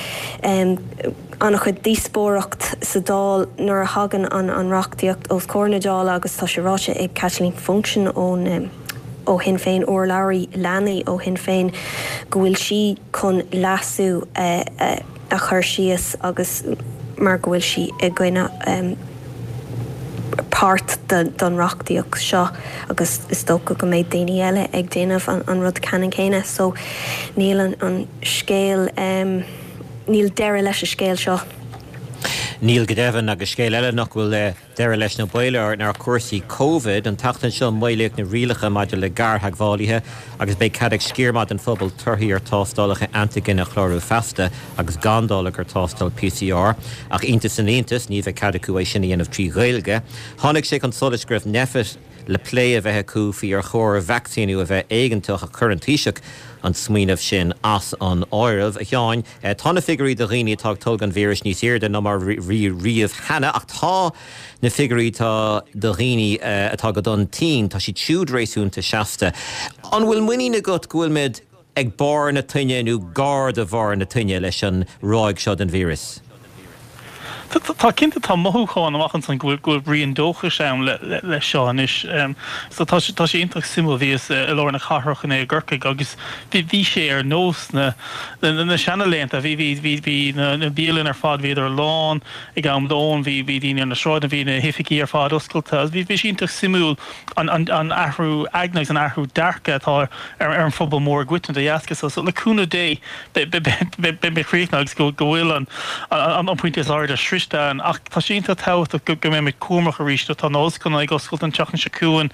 an-chuid díospóireacht sa Dáil nuair a thagann an reachtaíocht os comhair na Dála agus tá sé ráite ag Caitlín Funchion ón ó Shinn Féin, urlabhraí leanaí ó Shinn Féin, go bhfuil sí chun leasú a chur síos agus mar go bhfuil sí i gcoinne páirt den reachtaíocht seo agus is dócha go mbeidh daoine eile ag déanamh an rud ceannann céanna so níl an scéal, níl deireadh leis an scéal seo. Níl go deimhin agus scéal eile nach bhfuil deireadh leis nó baol air ná cúrsaí Covid. An tseachtain seo maolaíodh na rialacha maidir le gartheagmhálaithe agus beidh cead ag sciar maith den phobal torthaí ar tástálacha antaigine a chlárú feasta agus gan dul i gcomhair tástáil PCR. Ach iontas na n-iontas, ní bheidh cead acu é sin a dhéanamh trí Ghaeilge. Tháinig sé chun solais go raibh Nphet le plé a bheith acu faoi ar chóir vacsaíniú a bheith éigeantach ach chuir an Taoiseach an smaoineamh sin as an áireamh. A Sheáin, tá na figiúirí do dhaoine atá ag tolgadh an víris níos airde ná mar a bhí riamh cheana ach tá na figiúirí atá do dhaoine atá go dona tinn, tá siad siúd réasúnta seasta. An bhfuil muinín agat go bhfuilimid ag barr na toinne nó gar do bharr na toinne leis an ráig seo den víreas? Tá cinnte, tá mothúchán amach ansan go bhfuil rian dóchais ann leis seo anois. So tá sé tá sé iontach suimiúil. Bhíos i lár na cathrach inné i gCorcaigh agus bhí sé ar nós na na seana laethanta. Bhí bhí bhí bhí na bialanna ar fad bhíodar lán ag am lóin, bhí bhí daoine ar na sráideanna, bhí na hoifigí ar fad oscailte agus bhí bhí sé iontach suimiúil an an an athrú aigne agus an athrú dearcadh atá ar ar an phobal mór i gcoitinne de dheasca so. So le cúnamh Dé beidh críochnaithe agus go bhfuil an pointe is airde sroichte ann. Ach tá sé iontach tábhachtach go mbeimid cúramach arís. Tá na ollscoileanna ag oscailt an tseachtain seo chugainn,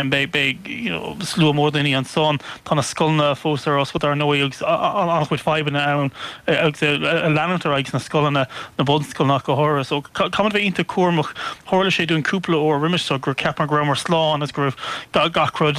beidh slua mór daoine ansan. Tá na scoileanna fós ar oscailt ar ndóigh agus an-chuid fadhbanna ann agus ag leanúint ar aghaidh sna scoileanna, na bunscoileanna ach go háirithe. So caithfimid bheith iontach cúramach. Tharla sé dúinn cúpla uair roimis seo gur cheapamar go rabhamar slán agus go raibh gach rud,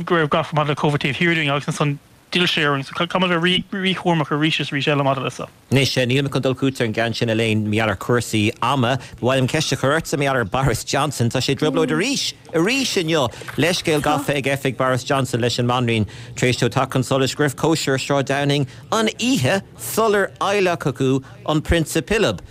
go raibh gach rud maidir le Covid taobh thiar dúinn agus ansan D'fhill sé orainn, so caithfimid a bheith rí-chúramach arís is arís eile maidir leis seo. Anois, níl mé chun dul chugat ar an gceann sin, Elaine, mar gheall ar chúrsaí ama. Ba mhaith liom ceist a chur ortsa mar gheall ar Boris Johnson. Tá sé i dtrioblóid arís, arís inniu! Leithscéal gafa ag oifig Boris Johnson leis an mBanríon tar éis dó teacht chun solais go raibh cóisir ar Shráid Downing an oíche sular adhlacadh an Prionsa Pilib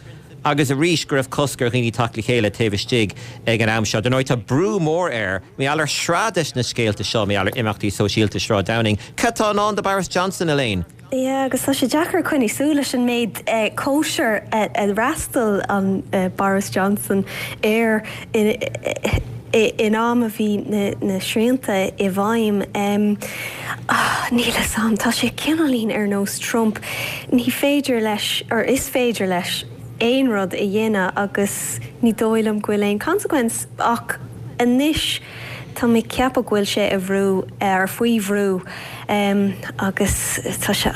agus arís go raibh cosc ar dhaoine teacht le chéile taobh istigh ag an am seo. Dar ndóigh, tá brú mór air mar gheall ar shraith des na scéalta seo, mar gheall ar imeachtaí sóisialta Shráid Downing. Cad tá i ndán do Boris Johnson, Elaine? Yeah, agus tá sé deacair coinní súil leis an méid cóisir a d'fhreastail an Boris Johnson air in am a bhí na srianta i bhfeidhm. Níl 'fhios a'm, tá sé cineáilín ar nós Trump, ní féidir leis, or is féidir leis, aon rud a dhéanamh agus ní dóigh liom go bhfuil aon consequence ach anois tá mé ag ceapadh go bhfuil sé i bhrú, or faoi bhrú agus tá sé,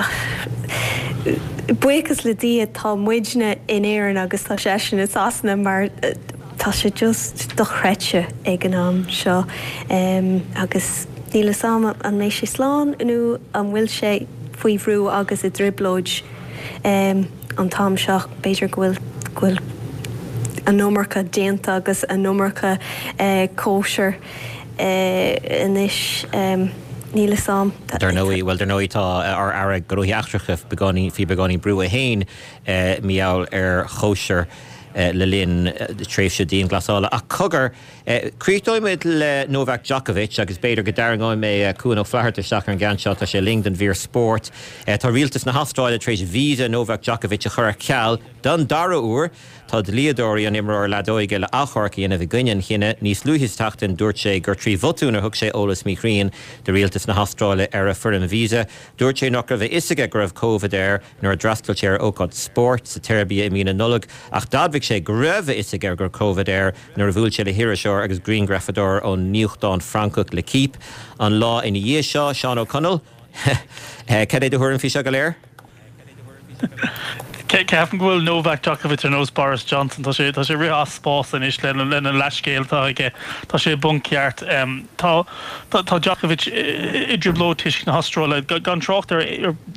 buíochas le Dia tá muidne in Éirinn agus tá seisean i Sasana mar tá sé just dochreidte ag an am seo agus níl 'fhios a'm an mbeidh sé slán nó an bhfuil sé faoi bhrú agus i dtrioblóid an t-am seo. B'fhéidir go bhfuil go bhfuil an iomarca déanta agus an iomarca cóisir anois. Níl 'fhios a'm. Dar ndóigh, bhuel, dar ndóigh tá ár Aire Gnóthaí Eachtracha beagáinín, faoi beagáinín brú é féin mar gheall ar chóisir le linn tréimhse dianghlasála. Ach cogar, críochnóidh muid le Novak Djokovic agus b'fhéidir go dtarraingeoidh mé Cuan Ó Flatharta isteach ar an gceann seo, tá sé linn don mhír spóirt. Tá rialtas na hAstráile tar éis visa Novak Djokovic a chur ar ceal don dara huair. Tá dlíodóirí an imreora leadóige le achomharc a dhéanamh i gcoinne an chinnidh. Níos luaithe sa tseachtain dúirt sé gur trí bhotún a thug sé eolas míchruinn do rialtas na hAstráile ar a foirm visa. Dúirt sé nach raibh a fhios aige go raibh Covid air. nuair a d'fhreastail sé ar ócáid spóirt sa tSeirbia i mí na Nollag ach d'admhaigh sé go raibh a fhios aige go raibh Covid air nuair a bhuail sé le hiriseoir agus grianghrafadóir ón nuachtán Francach L'Equipe an lá ina dhiaidh seo. Seán Ó Conaill, Cad é do thuairim faoi seo go léir? Ceapaim go bhfuil Novak Djokovic ar nós Boris Johnson, tá sé tá sé ag rith as spás anois lena lena leathscéal atá aige. Tá sé i bponc ceart. Tá tá Djokovic i dtrioblóid toisc na hAstráile. Gan trácht ar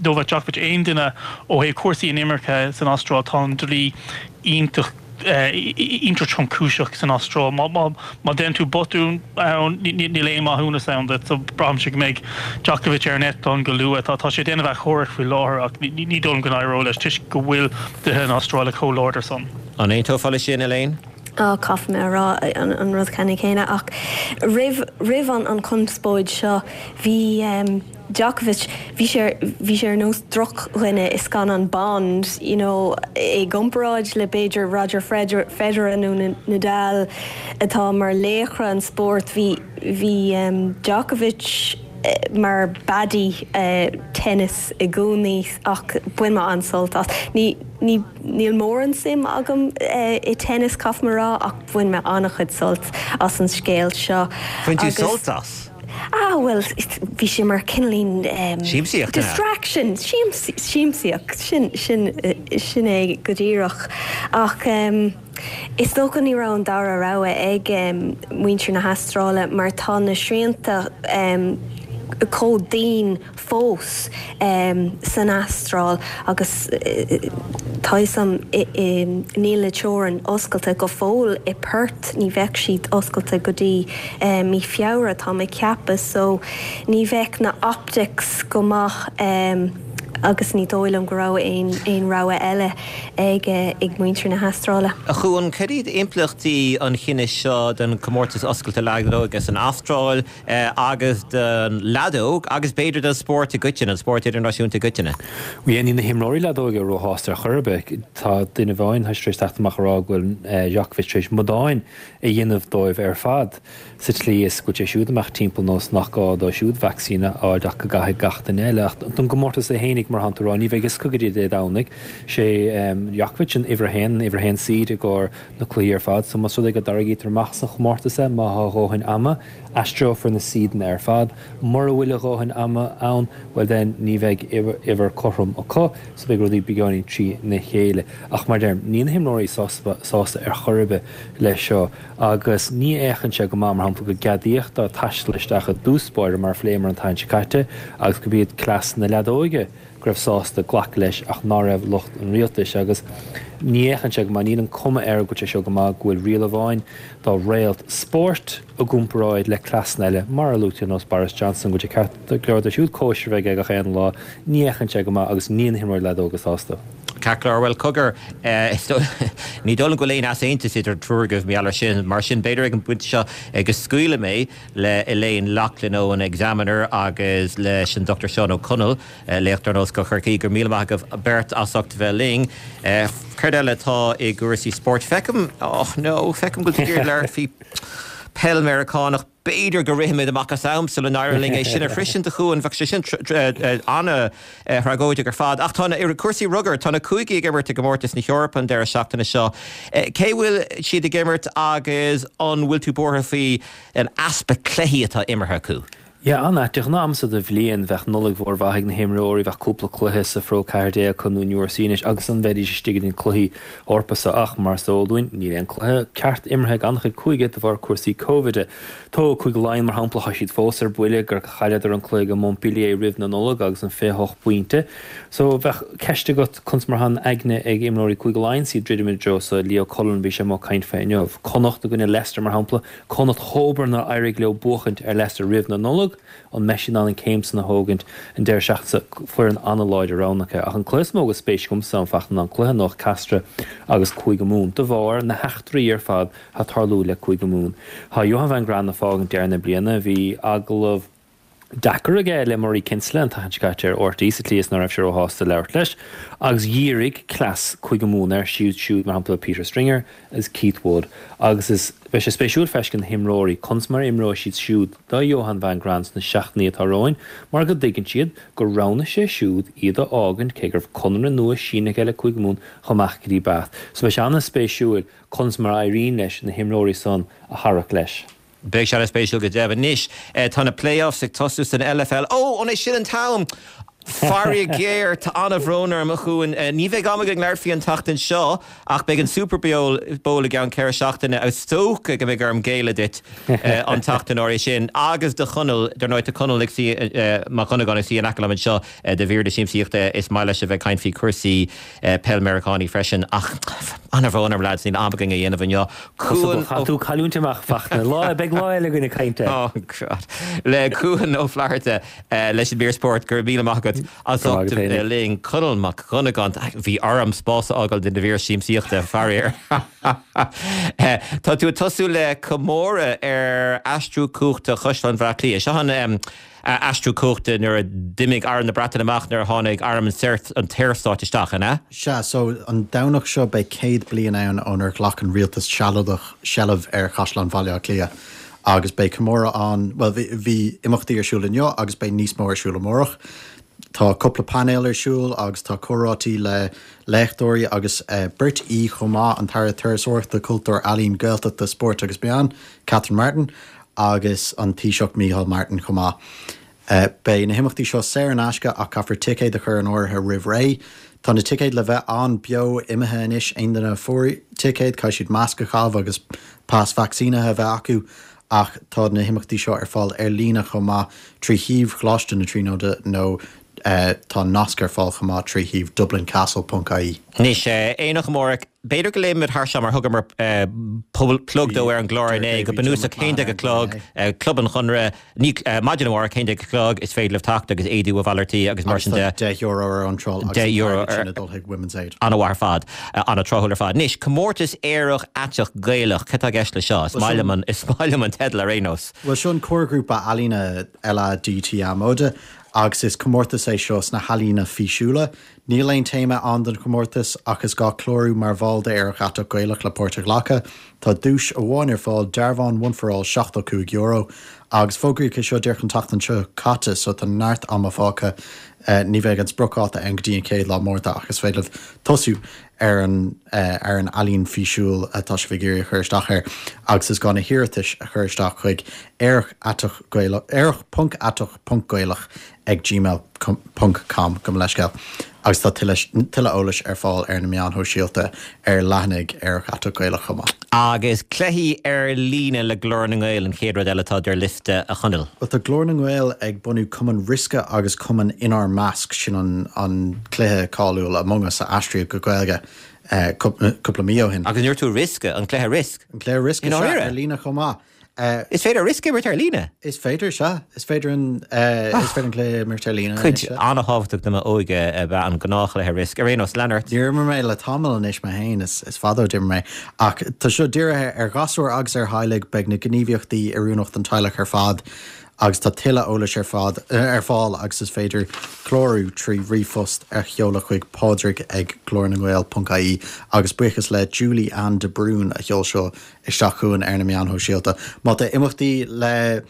Novak Djokovic, aon duine ó thaobh cúrsaí inimirce san Astráil, tá an dlí iontach iontach tromchúiseach san Astráil. Má má déanann tú botún ann, níl aon maithiúnas ann duit. So braithimse go mbeidh Djokovic ar an eitleán go luath. Tá sé ag déanamh achomhairc faoi láthair ach ní dóigh liom go n-éireoidh leis toisc go bhfuil dlíthe na hAstráile chomh láidir san. An aontófá leis sin, Elaine? Á, caithfidh mé a rá an rud ceannann céanna ach roimh roimh an chonspóid seo bhí Djokovic, bhí sé bhí sé ar nós drochdhuine i scannán Bond, you know, i gcomparáid le b'fhéidir Roger Federer nó Nadal atá mar laochra an spóirt, bhí bhí Djokovic mar baddie tennis i gcónaí ach bhain mé an-sult as. Ní ní níl mórán suim agam i tennis caithfidh mé a rá ach bhain mé an-chuid sult as an scéal seo. Bhain tú sult as? Ah bhuel bhí sé mar cineáilín Siamsaíocht, an ea? distraction, siamsaíocht, sin, sin, sin é go díreach. Ach is dócha ní raibh an dara rogha ag muintir na hAstráile mar tá na srianta chomh dian fós san Astráil agus tá fhios a'm níl na teorainn oscailte go fóill i Perth, ní bheadh siad oscailte go dtí mí Feabhra tá mé ag ceapadh so ní bheadh na optics go maith agus ní dóigh liom go raibh aon rogha eile ag ag muintir na hAstráile. A Chuain, cad iad impleachtaí an chinnidh seo don chomórtas oscailte leadóige san Astráil? agus don leadóg agus b'fhéidir don spórt i gcoitinne, an spórt idirnáisiúnta i gcoitinne. Bhuel, níl na himreoirí leadóige róshásta ar chor ar bith. Tá duine amháin tar éis teacht amach a rá go bhfuil Djokovic tar éis amadáin a dhéanamh dóibh ar fad, sa tslí is go bhfuil sé siúd ag imeacht timpeall nós nach gá dó siúd vacsaín a fháil ach go gcaithfidh gach duine eile. Ach don gcomórtas é fhéinig, mar atánn tú a rá, ní bheidh fhios acu go dtí Dé Domhnaigh. Sé Djokovic an uimhir a haon, an uimhir a haon seed i gcomhair na cluichí ar fad. So más rud é go dtarraingítear amach as an chomórtas é, má thá a dhóthain ama, Aistreofar na seedanna ar fad. Mura bhfuil a dhóthain ama ann, bhuel then, ní bheidh uimhir cothrom acu, so beidh rudaí beagáinín trína chéile. Ach mar a deirim, níl na himreoirí sásta ar chor ar bith leis seo agus ní fhéachann sé go maith, mar shampla, go gceadaíodh dóibh taisteal isteach i dtús báire, mar a phléamar an tseachtain seo caite, agus gurb iad cleas na leadóige go raibh sásta glacadh leis ach ná raibh lucht an rialtais agus ní fhéachann sé go maith, níl an cuma air go bhfuil sé seo go maith go bhfuil riail amháin dá réalt spóirt i gcomparáid le cleasanna eile mar a luaigh tú ar nós Boris Johnson go bhfuil sé ceart go leor dó siúd cóisir a bheith aige gach aon lá, ní fhéachann sé go maith agus níl na himreoirí leadóige sásta. Ceart go leor, bhuel cogar, ní dóigh liom go bhfuil aon easaontas idir an triúr agaibh mar gheall air sin, mar sin b'fhéidir ag an bpointe seo go scaoilfidh mé le Elaine Loughlin ón Examiner agus leis an Dr Seán Ó Conaill, léachtóir in Ollscoil Chorcaí. Go raibh míle maith agaibh beirt as ucht a bheith linn. Céard eile atá i gcúrsaí spóirt? Feicim, oh no, feicim go bhfuil tú ag iarraidh labhairt faoi peil Meiriceánach. B'fhéidir go rithfimid amach as am sula n-éireoidh linn é sin a shroisint, a Chuain. Bheadh sé sin an-tragóideach ar fad. Ach tá na, i cúrsaí rugair, tá na cúigí ag imirt i gcomórtas na hEorpa an deireadh seachtaine seo. Cé bhfuil siad ag imirt agus an bhfuil tú buartha faoi an easpa cluichí atá imeartha acu? Yeah, an-ait. De ghnáth am seo de bhliain, bheadh Nollaig mhór mhaith ag na himreoirí, bheadh cúpla cluiche sa Phro 14 acu nó in URC anois agus ansan bheidís istigh idir na cluichí Eorpacha so ach mar is eol dúinn, níl aon cluiche ceart imeartha ag an-chuid cúige de bharr cúrsaí Covid. Tóg Cúige Laighean mar shampla, tá siad fós ar buile gur chailleadar an cluiche go Montpellier roimh na Nollag agus an 28 bpointe. So bheadh ceist agat conas mar atá an aigne ag imreoirí Cúige Laighean is iad druidim i dtreo so Leo Cullen bhí sé amuigh ag caint fé inniu. Connacht i gcoinne Leicester mar shampla, Connacht chomh nár éirigh leo buachaint ar Leicester roimh na Nollag, an mbeidh siad in ann an céim san a thógaint an deireadh seachtaine seo? Foireann an-láidir roghnaithe acu. Ach an cluiche is mó go spéis agamsa an fachtna ná an cluiche anocht Castres agus Cúige Mumhan de bharr na heachtraí ar fad atá ag tarlú le Cúige Mumhan. Tá Johan van Graan ag fágaint deireadh na bliana. Bhí agallamh deacair aige le Murray Kinsella an tseachtain seo caite ar RTÉ sa tslí is ná raibh sé róshásta labhairt leis agus dhírigh cleas Cúige Mumhan air siúd siúd mar shampla Peter Stringer agus Keith Wood agus is beidh sé spéisiúil feiscint na himreoirí conas mar a imreoidh siad siúd do Johan van Graan sna seachtainí atá romhainn mar go dtuigeann siad gur roghnaigh sé siúd iad a fhágaint cé go raibh conradh nua sínithe aige le Cúige Mumhan chomh maith go dtí Bath so beidh sé an-spéisiúil conas mar a éiríonn leis na himreoirí san a tharrac leis. Beidh sé an-spéisiúil go deimhin. Anois, tá na play-offs ag tosú san LFL. Ó, an é sin an t-am? Faraor géar, tá an-bhrón orm, a Chuain. Ní bheidh am againn labhairt faoi an tseachtain seo, ach beidh an Super Bowl i gceann 4 seachtaine agus is dócha go mbeidh orm géilleadh duit an tseachtain áirithe sin. Agus do Chonall, dar ndóigh, tá Conall ag suí, Mac Dhonnagáin ag suí in aice liom anseo do mhír na siamsaíochta. Is maith leis a bheith ag caint faoi chúrsaí peil Meiriceánaí freisin. Ach an-bhrón orm, lads, níl am againn a dhéanamh inniu. Cuan Ó. Chaith tú cailliúint amach, Fachtna. Lá, beidh lá eile againn ag caint air. Oh God. Le Cuan Ó Flatharta leis an mír spóirt, go raibh míle maith agat as Go raibh ucht maith a agat bheith féinig. linn. Conall Mac Dhonnagáin, bhí orm spás a fhágáil do na mhír siamsaíochta, faraor. Tá tú ag tosú le comóradh ar aistriú cumhachta Chaisleán Bhaile Átha Cliath. Seo an aistriú cumhachta nuair a d'imigh Arm na Breataine amach nuair a tháinig Arm an tSaorstáit isteach, an ea? Sea, so an Domhnach seo beidh 100 bliain ann ónar ghlac an rialtas sealadach seilbh ar Chaisleán Bhaile Átha Cliath agus beidh comóradh ann, bhuel bhí, bhí imeachtaí ar siúl inniu agus beidh níos mó ar siúl amárach. Tá cúpla painéal ar siúl agus tá comhráití le léachtóirí agus beirt aoi chomh maith, an tAire Turasóireachta, Cultúir, Ealaíon, Gaeltachta, Spóirt agus Meán, Catherine Martin, agus an Taoiseach Micheál Martin chomh maith. Beidh na himeachtaí seo saor in aisce ach caithfear ticéad a chur in áirithe roimh ré. Tá na ticéid le bheith ann beo imithe anois, aon duine a fuair ticéad caithfidh siad masc a chaitheamh agus pas vacsaínithe a bheith acu ach tá na himeachtaí seo ar fáil ar líne chomh maith trí shuíomh Choláiste na Tríonóide nó tá nasc ar fáil chomh maith trí shuíomh dublincastle ponc ie. Anois, Aonach amárach, b'fhéidir go léifimid thar seo mar thugamar plug dó ar an gclár inné, go bunúsach 11 a chlog, Club an Chonradh, ní, maidin amárach, 11 a chlog, is féidir libh teacht agus éadaí a mhalartú agus mar sin de. Agus tá €10 ar iontráil agus an t-airgead sin ag dul chuig Women's Aid. An-mhaith ar fad, an-tráthúil ar fad. Anois, comórtas Aerach Aiteach Gaelach, cad tá i gceist le seo? Is maith liom an, is maith liom an teideal ar aon nós. Bhuel, seo an comharghrúpa ealaíne LADT Móide agus is comórtas é seo sna healaíona físiúla. Níl aon téama ann don chomórtas ach is gá clárú mar bhall d'Aerach Aiteach Gaelach le páirt a ghlacadh. Tá duais amháin ar fáil, dearbhán One for All €75, agus fógraíodh é seo díreach an tseachtain seo caite so tá neart ama fágtha. Ní bheidh an spriocdháta ann go dtí an chéad lá Márta ach is féidir libh tosú ar an ar an ealaín físiúil atá sibh ag iarraidh a chur isteach air agus is gá na hiarratais a chur isteach chuig aerach aiteach gaelach aerach ponc aiteach ponc gaelach ag gmail ponc com gabh mo leithscéal agus tá tuilleadh tuilleadh eolais ar fáil ar na meáin shóisialta ar leathanaigh Aerach Aiteach Gaelach chomh maith. Agus cluichí ar líne le Glór na nGael an chéad rud eile atá ar liosta a Chonaill. Bhuel tá Glór na nGael ag bunú Cumann Riosca agus Cumann Inár Measc, sin an an cluiche cáiliúil Among Us a aistríodh go Gaeilge cúpla mí ó shin. Agus an ndúirt tú Riosca, an cluiche Risk? An cluiche Risk, I sea, ndáiríre? ar líne chomh maith. Is féidir Risk a imirt ar líne? Is féidir, sea. Is féidir an is féidir an cluiche a imirt ar líne Cuid anois, sea. an-thábhachtach de m'óige ab ea an gnáthchluiche Risk. Ar aon nós, lean ort. Níor imir mé le tamall anois mé féin, is fada ó d'imir mé. Ach tá seo dírithe ar ghasúir agus ar theaghlaigh, beidh na gníomhaíochtaí oiriúnach don teaghlach ar fad agus tá tuilleadh eolais ar fad ar fáil agus is féidir clárú trí ríomhphost a sheoladh chuig pádraig ag glórnangael ponc ie agus buíochas le Julie Ann de Brún a sheol seo isteach chugainn ar na meáin shóisialta. Má tá imeachtaí le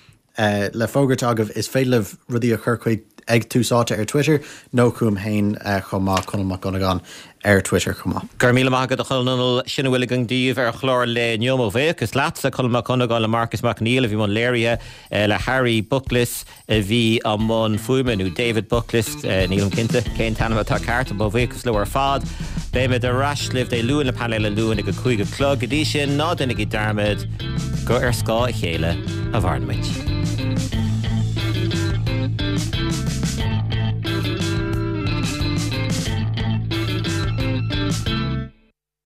le fógairt agaibh, is féidir libh rudaí a chur chuig ag Tús Áite ar Twitter nó chugam féin chomh maith, Conall Mac Dhonnagáin ar Twitter chomh maith. Go raibh míle maith agat a Chonaill. Sin a bhfuil againn daoibh ar chlár an lae inniu. Mo bhuíochas leatsa, Conall Mac Dhonnagáin, le Marcus Mac Neill a bhí i mbun léirithe, le Harry Bucklis, a bhí i mbun fuaime, nó David Bucklis, nílim cinnte cén t-ainm atá ceart. Mo bhuíochas leo ar fad. Beimid ar ais libh Dé Luain le painéal an Luain ag a 5 a chlog. Go dtí sin, ná déanaigí dearmad gur ar scáth a chéile a mhaireann muid.